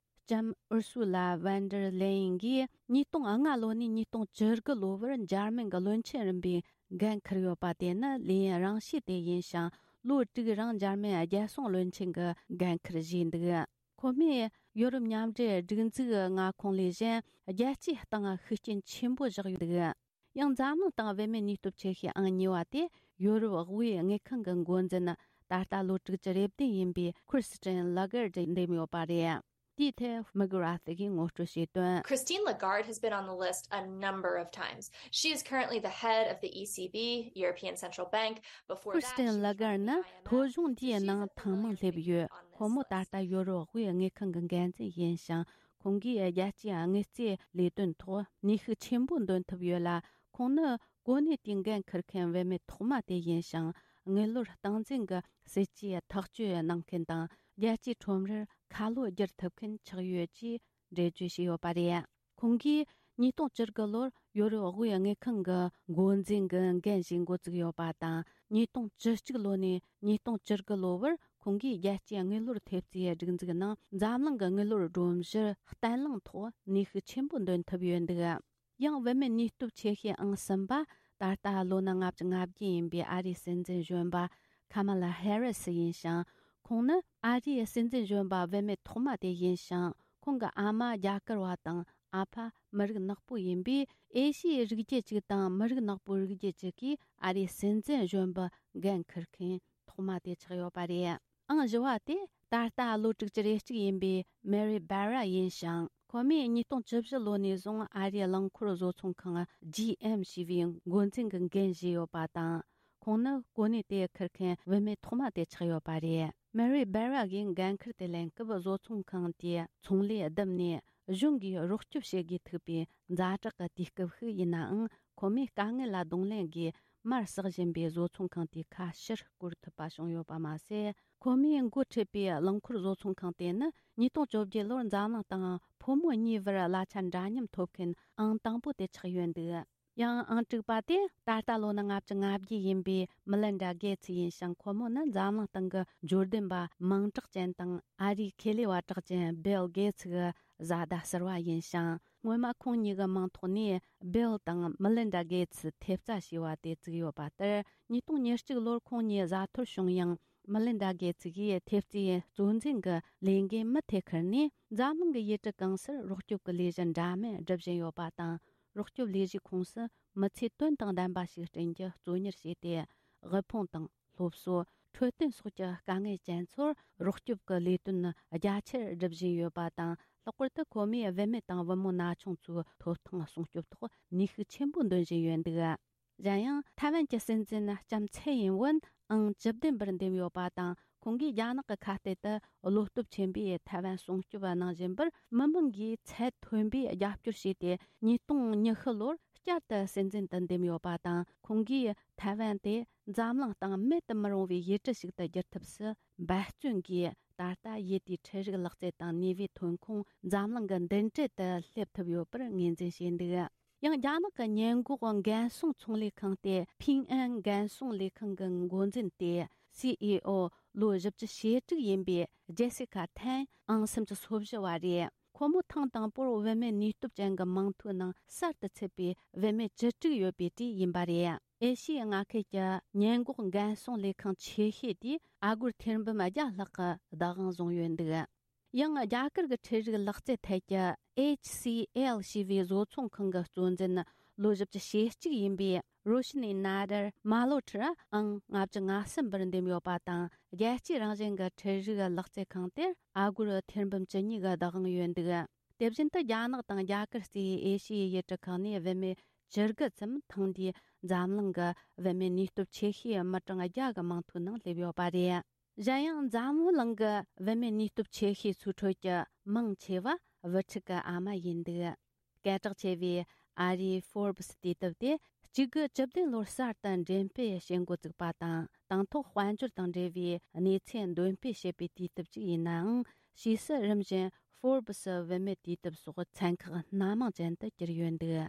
ལྕམ་ཨུར་སུ་ལ་ཝན་ཌར་ལེ་ཡིན་གྱིས་ཉིས་སྟོང་ལྔ་ལོ་ནས་ཉིས་སྟོང་བཅུ་དགུ་ལོ་བར་འཇར་མན་གྱི་བློན་ཆེན་རིམ་པའི་འགན་འཁུར་ཡོད་པ་དེ་ནི་ལས་ཡུན་རིང་ཤོས་དེ་ཡིན་ཞིང་། ལོ་དྲུག་རིང་འཇར་མན་རྒྱལ་སྲུང་བློན་ཆེན་གྱི་འགན་འཁུར་བཞེས་འདུག་ཁོ་མོས་ཡོ་རོབ་མཉམ་འབྲེལ་སྒྲིག་འཛུགས་མངའ་ཁོངས་ལས་གཞན་རྒྱལ་སྤྱིའི་སྟེང་ཤུགས་རྐྱེན་ཆེན་པོ་བཞག་ཡོད་འདུག་ཡང་འཛམ་གླིང་སྟེང་བུད་མེད་ནུས་སྟོབས་ཆེ་ཤོས་ཨང་གཉིས་པ་དེ་ཡོ་རོབ་དབུས་དངུལ་ཁང་གི་འགོ་འཛིན། ད་ལྟ་ལོ་དྲུག་ཅུ་རེ་བདུན་ཡིན་པའི་ཁིར་སི་ཏན་ལ་གར་ཌི་འདེམས་ཡོད་པ་རེད། དེའི་ཐད་མི་གྷི་ར་ཐི་གིས་ངོ་སྤྲོད་བྱས་དོན། Christine Lagarde has been on the list a number of times. She is currently the head of the E C B, European Central Bank. Before that, she was on the I M F. ཁིར་སི་ཏན་ལ་གར་ནི་ཐོ་གཞུང་འདིའི་ནང་ཐེངས་མང་སླེབས་ཡོད། ཁོ་མོ་ད་ལྟ་ཡོ་རོབ་དབུས་དངུལ་ཁང་གི་འགན་འཛིན་ཡིན་ཞིང་། ཁོང་གིས་རྒྱལ་སྤྱིའི་དངུལ་རྩིས་ལས་དོན་ཐོག་ནུས་ཤུགས་ཆེན་པོ་འདོན་ཐུབ་ཡོད་ལ། ཁོང་ནི་གོ་གནས་དེའི་འགན་འཁུར་མཁན་བུད་མེད་ཐོག་མ་དེ་ཡིན་ཞིང་། དངུལ་ལོར་སྟངས་འཛིན་གྱི་སྲིད་ཇུས་ཐག་གཅོད་གནང་མཁན་དང་། རྒྱལ་སྤྱིའི་ཁྲོམ་རར་ཁ་ལོ་བསྒྱུར་ཐུབ་མཁན་ཆགས་ཡོད་ཅེས་འགྲེལ་བརྗོད་བྱས་ཡོད་པ་རེད། ཁོང་གིས་ཉིས་སྟོང་བཅུ་དགུ་ལོར་ཡོ་རོབ་དབུས་དངུལ་ཁང་གི་འགོ་འཛིན་གྱི་འགན་བཞེས་འགོ་བཙུགས་ཡོད་པ་དང་། ཉིས་སྟོང་བཅུ་གཅིག་ལོ་ནས་ཉིས་སྟོང་བཅུ་དགུ་ལོ་བར་ཁོང་གིས་རྒྱལ་སྤྱིའི་དངུལ་ལོར་ཐེབས་རྩའི་སྒྲིག་འཛུགས་ནང་འཛམ་གླིང་གི་དངུལ་ལོར་སྒྲོམ་གཞིར་བརྟན་བརླིང་ཐོག་ནུས་ཤུགས་ཆེན་པོ་འདོན་ཐུབ་ཡོད་འདུག་ཡང་བུད་མེད་ནུས་སྟོབས་ཆེ་ཤོས་ཨང་གསུམ་པ། ད་ལྟ་ལོ་ན་ལྔ་བཅུ་ང་བརྒྱད་ཡིན་པའི་ཨ་རིའི་སྲིད་འཛིན་གཞོན་པ་ཁ་མ་ལ་ཧེ་རི་སི་ཡིན་ཞིང་། ཁོང་ནི་ཨ་རིའི་སྲིད་འཛིན་གཞོན་པ་བུད་མེད་ཐོག་མ་དེ་ཡིན་ཞིང་། ཁོང་གི་ཨ་མ་རྒྱ་གར་བ་དང་། ཨ་ཕ་མི་རིགས་ནག་པོ་ཡིན་པས། ཨེ་ཤི་ཡའི་རིགས་རྒྱུད་ཅིག་དང་མི་རིགས་ནག་པོའི་རིགས་རྒྱུད་ཅིག་གིས་ཨ་རིའི་སྲིད་འཛིན་གཞོན་པའི་འགན་འཁུར་མཁན་ཐོག་མ་དེ་ཆགས་ཡོད་པ་རེད། ཨང་བཞི་བ་དེ་ད་ལྟ་ལོ་དྲུག་ཅུ་རེ་གཅིག་ཡིན་པའི་མེ་རི་སྦེ་ར་ཡིན་ཞིང་། ཁོ་མོས་ཉིས་སྟོང་བཅུ་བཞི་ལོ་ནས་བཟུང་ཨ་རིའི་རླངས་འཁོར་བཟོ་ཚོང་ཁང་ཇི་ཨེམ་ཞེས་པའི་འགོ་འཛིན་གྱི་འགན་བཞེས་ཡོད་པ་དང་། ཁོང་ནི་གོ་གནས་དེ་འཁུར་མཁན་བུད་མེད་ཐོག་མ་དེ་ཆགས་ཡོད་པ་རེད། མེ་རི་སྦེ་ར་གིས་འགན་འཁུར་དེ་ལེན་སྐབས། བཟོ་ཚོང་ཁང་དེས་ཚོང་ལས་བསྡུམས་ནས་གཞུང་གིས་རོགས་སྐྱོབ་བྱེད་དགོས་ཐུག་པའི་ཛ་དྲག་གི་དུས་སྐབས་ཤིག་ཡིན་ནའང་། ཁོ་མོས་དཀའ་ངལ་ལ་གདོང་ལེན་སྒོས་མར་ཟག་བཞིན་པའི་བཟོ་ཚོང་ཁང་དེའི་ཁ་ཕྱིར་བསྐོར་ཐུབ་པ་བྱུང་ཡོད་པ་མ་ཟད། ཁོ་མོས་འགོ་ཁྲིད་པའི་རླངས་འཁོར་བཟོ་ཚོང་ཁང་དེ་ནི་ཉིས་སྟོང་བཅོ་བརྒྱད་ལོར་འཛམ་གླིང་སྟེང་ཕོ་མོ་གཉིས་བར་གླ་ཆ་འདྲ་མཉམ་ཐོབ་མཁན་ཨང་དང་པོ་དེ་ཆགས་ཡོད་འདུག་ཡང་ཨང་དྲུག་པ་དེ་ད་ལྟ་ལོ་ན་ལྔ་བཅུ་ང་བརྒྱད་ཡིན་པའི་མི་ལིན་ཌ་གེ་ཚི་ཡིན་ཞིང་། ཁོ་མོ་ནི་འཛམ་གླིང་སྟེང་གི་འབྱོར་ལྡན་པ་མིང་གྲགས་ཅན་དང་ཨ་རིའི་ཁེ་ལས་པ་གྲགས་ཅན་བིལ་གེ་ཚི་གི་བཟའ་ཟླ་ཟུར་པ་ཡིན་ཞིང་། སྔོན་མ་ཁོང་གཉིས་ཀྱི་མིང་ཐོག་ནས་བིལ་དང་མི་ལིན་ཌ་གེ་ཚི་ཐེབས་རྩ་ཞེས་པ་དེ་བཙུགས་ཡོད་པ་ལྟར། ཉིས་སྟོང་ཉེར་གཅིག་ལོར་ཁོང་གཉིས་བཟའ་འཐོར་བྱུང་ཡང་། མི་ལིན་ཌ་གེ་ཚི་ཡིས་ཐེབས་རྩའི་གཙོ་འཛིན་གྱི་ལས་འགན་མུ་མཐུད་ཁུར་ནས། འཛམ་གླིང་གི་ཡུལ་གྲུ་གང་སར་རོགས་སྐྱོབ་ཀྱི་ལས་གཞི་འདྲ་མིན་སྒྲུབ་བཞིན་ཡོད་པ་དང་། རོགས་སྐྱོབ་ལས་གཞིའི་ཁོངས་སུ་མི་ཚེ་དོན་དང་ལྡན་པ་ཞིག་བསྐྲུན་རྒྱུ་གཙོ་གཉེར་བྱས་ཏེ། དབུལ་ཕོངས་དང་སློབ་གསོ། འཕྲོད་བསྟེན་སོགས་ཀྱི་དཀའ་ངལ་ཅན་ཚོར་རོགས་སྐྱོབ་ཀྱི་ལས་དོན་རྒྱ་ཆེར་སྒྲུབ་བཞིན་ཡོད་པ་དང་། ལྷག་པར་དུ་ཁོ་མོས་བུད་མེད་དང་བུ་མོ་ན་ཆུང་ཚོའི་ཐོབ་ཐང་སྲུང་སྐྱོབ་ཐོག་ནུས་ཤུགས་ཆེན་པོ་འདོན་བཞིན་ཡོད་འདུག། གཞན་ཡང་། ཐའེ་ཝན་གྱི་སྲིད་འཛིན་ལྕམ་ཚའེ་ཡིན་ཝུན་ཨང་བཅུ་བདུན་པར་འདེམས་ཡོད་པ་དང་། ཁོང་གིས་རྒྱ་ནག་གི་ཁ་གཏད་དུ་བློ་སྟོབས་ཆེན་པོས་ཐའེ་ཝན་སྲུང་སྐྱོབ་གནང་བཞིན་པར། མི་མང་གིས་ཚད་མཐོན་པོས་རྒྱབ་སྐྱོར་བྱས་ཏེ། ཉིས་སྟོང་ཉི་ཤུ་ལོར་བསྐྱར་དུ་སྲིད་འཛིན་དུ་འདེམས་ཡོད་པ་དང་། ཁོང་གིས་ཐའེ་ཝན་དེ་འཛམ་གླིང་སྟེང་མེད་དུ་མི་རུང་བའི་ཡུལ་གྲུ་ཞིག་ཏུ་བསྒྱུར་ཐབས་སུ་འབད་བརྩོན་གྱིས། ད་ལྟ་ཡུལ་དེའི་འཕྲུལ་རིག་ལག་རྩལ་དང་ནུས་པའི་ཐོན་ཁུངས་འཛམ་གླིང་གི་མདུན་གྲལ་དུ་སླེབས་ཐུབ་ཡོད་པར་ངོས་འཛིན་བྱས་འདུག། ཡང་རྒྱ་ནག་གི་ཉེན་འགོག་འགན་སྲུང་ཚོང་ལས་ཁང་སྟེ། ཕིང་ཨན་འགན་སྲུང་ལས་ཁང་གི་འགོ་འཛིན་ཏེ། སི་ཨི་ཨོ་ལོ་བཞི་བཅུ་ཞེ་དྲུག་ཡིན་པའི་ཇེ་སི་ཁ་ཐན་ཨང་སུམ་ཅུ་སོ་བཞི་བ་རེད། ཁོ་མོ་ཐེངས་དང་པོར་བུད་མེད་ནུས་སྟོབས་ཅན་གྱི་མིང་ཐོའི་ནང་གསར་དུ་ཚུད་པའི་བུད་མེད་བཅུ་དྲུག་ཡོད་པའི་གྲས་ཡིན་པ་རེད། ཨེ་ཤི་ཡའི་མངའ་ཁུལ་གྱི་ཉེན་འགོག་འགན་སྲུང་ལས་ཁང་ཆེ་ཤོས་དེས་ཨ་སྒོར་ཐེར་འབུམ་བརྒྱ་ལྷག་གི་བདག་དབང་བཟུང་ཡོད་འདུག། ཡང་རྒྱ་གར་གྱི་འཕྲུལ་རིག་ལག་རྩལ་ཐད་ཀྱི་ཨེཆ་སི་ཨེལ་ཞེས་པའི་བཟོ་ཚོང་ཁང་གི་གཙོ་འཛིན་ལོ་བཞི་བཅུ་ཞེ་གཅིག་ཡིན་པའི་རོ་ཤི་ནི་ན་དར་མ་ལོ་ཁྲི་ཨང་ལྔ་བཅུ་ང་གསུམ་པར་འདེམས་ཡོད་པ་དང་། རྒྱལ་སྤྱིའི་རང་བཞིན་གྱི་འཕྲུལ་རིག་ལག་རྩལ་ཁང་དེར་ཨ་སྒོར་ཐེར་འབུམ་བཅུ་གཉིས་ཀྱི་བདག་དབང་ཡོད་འདུག། དེ་བཞིན་དུ་རྒྱ་ནག་དང་རྒྱ་གར་སུའི་ཨེ་ཤི་ཡའི་ཡུལ་གྲུ་ཁག་ནས་བུད་མེད་བཅུ་དགུ་ཙམ་ཐེངས་འདིའི་འཛམ་གླིང་གི་བུད་མེད་ནུས་སྟོབས་ཆེ་ཤོས་མི་གྲངས་བརྒྱ་གི་མིང་ཐོའི་ནང་སླེབས་ཡོད་པ་རེད། གཞན་ཡང་འཛམ་བུ་གླིང་གི་བུད་མེད་ནུས་སྟོབས་ཆེ་ཤོས་ཚོའི་ཁྲོད་ཀྱི་མང་ཆེ་བ་བུ་ཕྲུག་གི་ཨ་མ་ཡིན་འདུག། སྐད་གྲགས་ཆེ་བའི་ཨ་རིའི་Forbes་དུས་དེབ་དེ་གཅིག་དགུ་བཅུ་བདུན་ལོར་གསར་དུ་འགྲེམས་སྤེལ་བྱེད་འགོ་བཙུགས་པ་དང་། དང་ཐོག་དཔལ་འབྱོར་དང་འབྲེལ་བའི་གནས་ཚུལ་འདོན་སྤེལ་བྱེད་པའི་དུས་དེབ་ཅིག་ཡིན་ནའང་། ཕྱིས་སུ་རིམ་བཞིན་Forbes་བུད་མེད་དུས་དེབ་སོགས་ཚན་ཁག་སྣ་མང་ཅན་དུ་གྱུར་ཡོད་འདུག།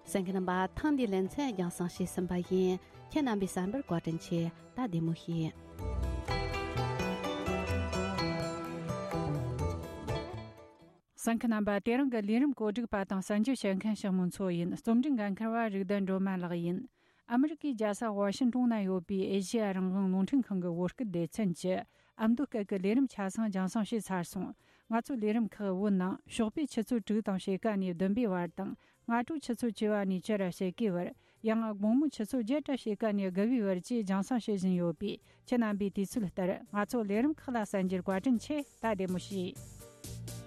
གསན་མཁན་རྣམ་པ། ཐེངས་འདིའི་ལེ་ཚན་རྒྱང་སྲིང་བྱས་ཟིན་པ་ཡིན། ཁྱེད་རྣམ་པའི་བསམ་པར་བཀའ་དྲིན་ཆེ། ད་བདེ་མོ་བྱོས། གསན་མཁན་རྣམ་པ། དེ་རིང་གི་ལས་རིམ་གོ་སྒྲིག་པ་དང་གསན་རྒྱུ་བྱེད་མཁན་ཞིག་མོན་མཚོ་ཡིན། རྩོམ་སྒྲིག་འགན་འཁུར་བ་རིག་ལྡན་སྒྲོལ་མ་ལགས་ཡིན། ཨ་མི་རི་ཀའི་རྒྱལ་ས་ཝ་ཤིང་ཏོན་ན་ཡོད་པའི་ཨེ་ཤེ་ཡ་རང་དབང་རླུང་འཕྲིན་ཁང་གི་བོད་སྐད་སྡེ་ཚན་གྱི་ཨ་མདོ་སྐད་ཀྱི་ལས་རིམ་ཆ་ཚང་རྒྱང་སྲིང་བྱས་ཚར་སོང་། ང་ཚོའི་ལས་རིམ་ཁག་བོད་ནང་ཞོགས་པའི་ཆུ་ཚོད་དྲུག་དང་ཕྱེད་ཀ་ནས་བདུན་པའི་བར་དང་། སྔ་དྲོའི་ཆུ་ཚོད་བཅུ་པ་ནས་བཅུ་ར་ཕྱེད་ཀའི་བར། ཡང་དགོང་མོའི་ཆུ་ཚོད་བརྒྱད་ར་ཕྱེད་ཀ་ནས་དགུ་པའི་བར་བཅས་རྒྱང་སྲིང་བྱེད་བཞིན་ཡོད་པས། ཁྱེད་རྣམ་པས་དུས་ཚོད་ལྟར་ང་ཚོའི་ལས་རིམ་ཁག་ལ་གསན་རྒྱུར་བཀའ་དྲིན་ཆེ། ད་བདེ་མོ་བྱོས།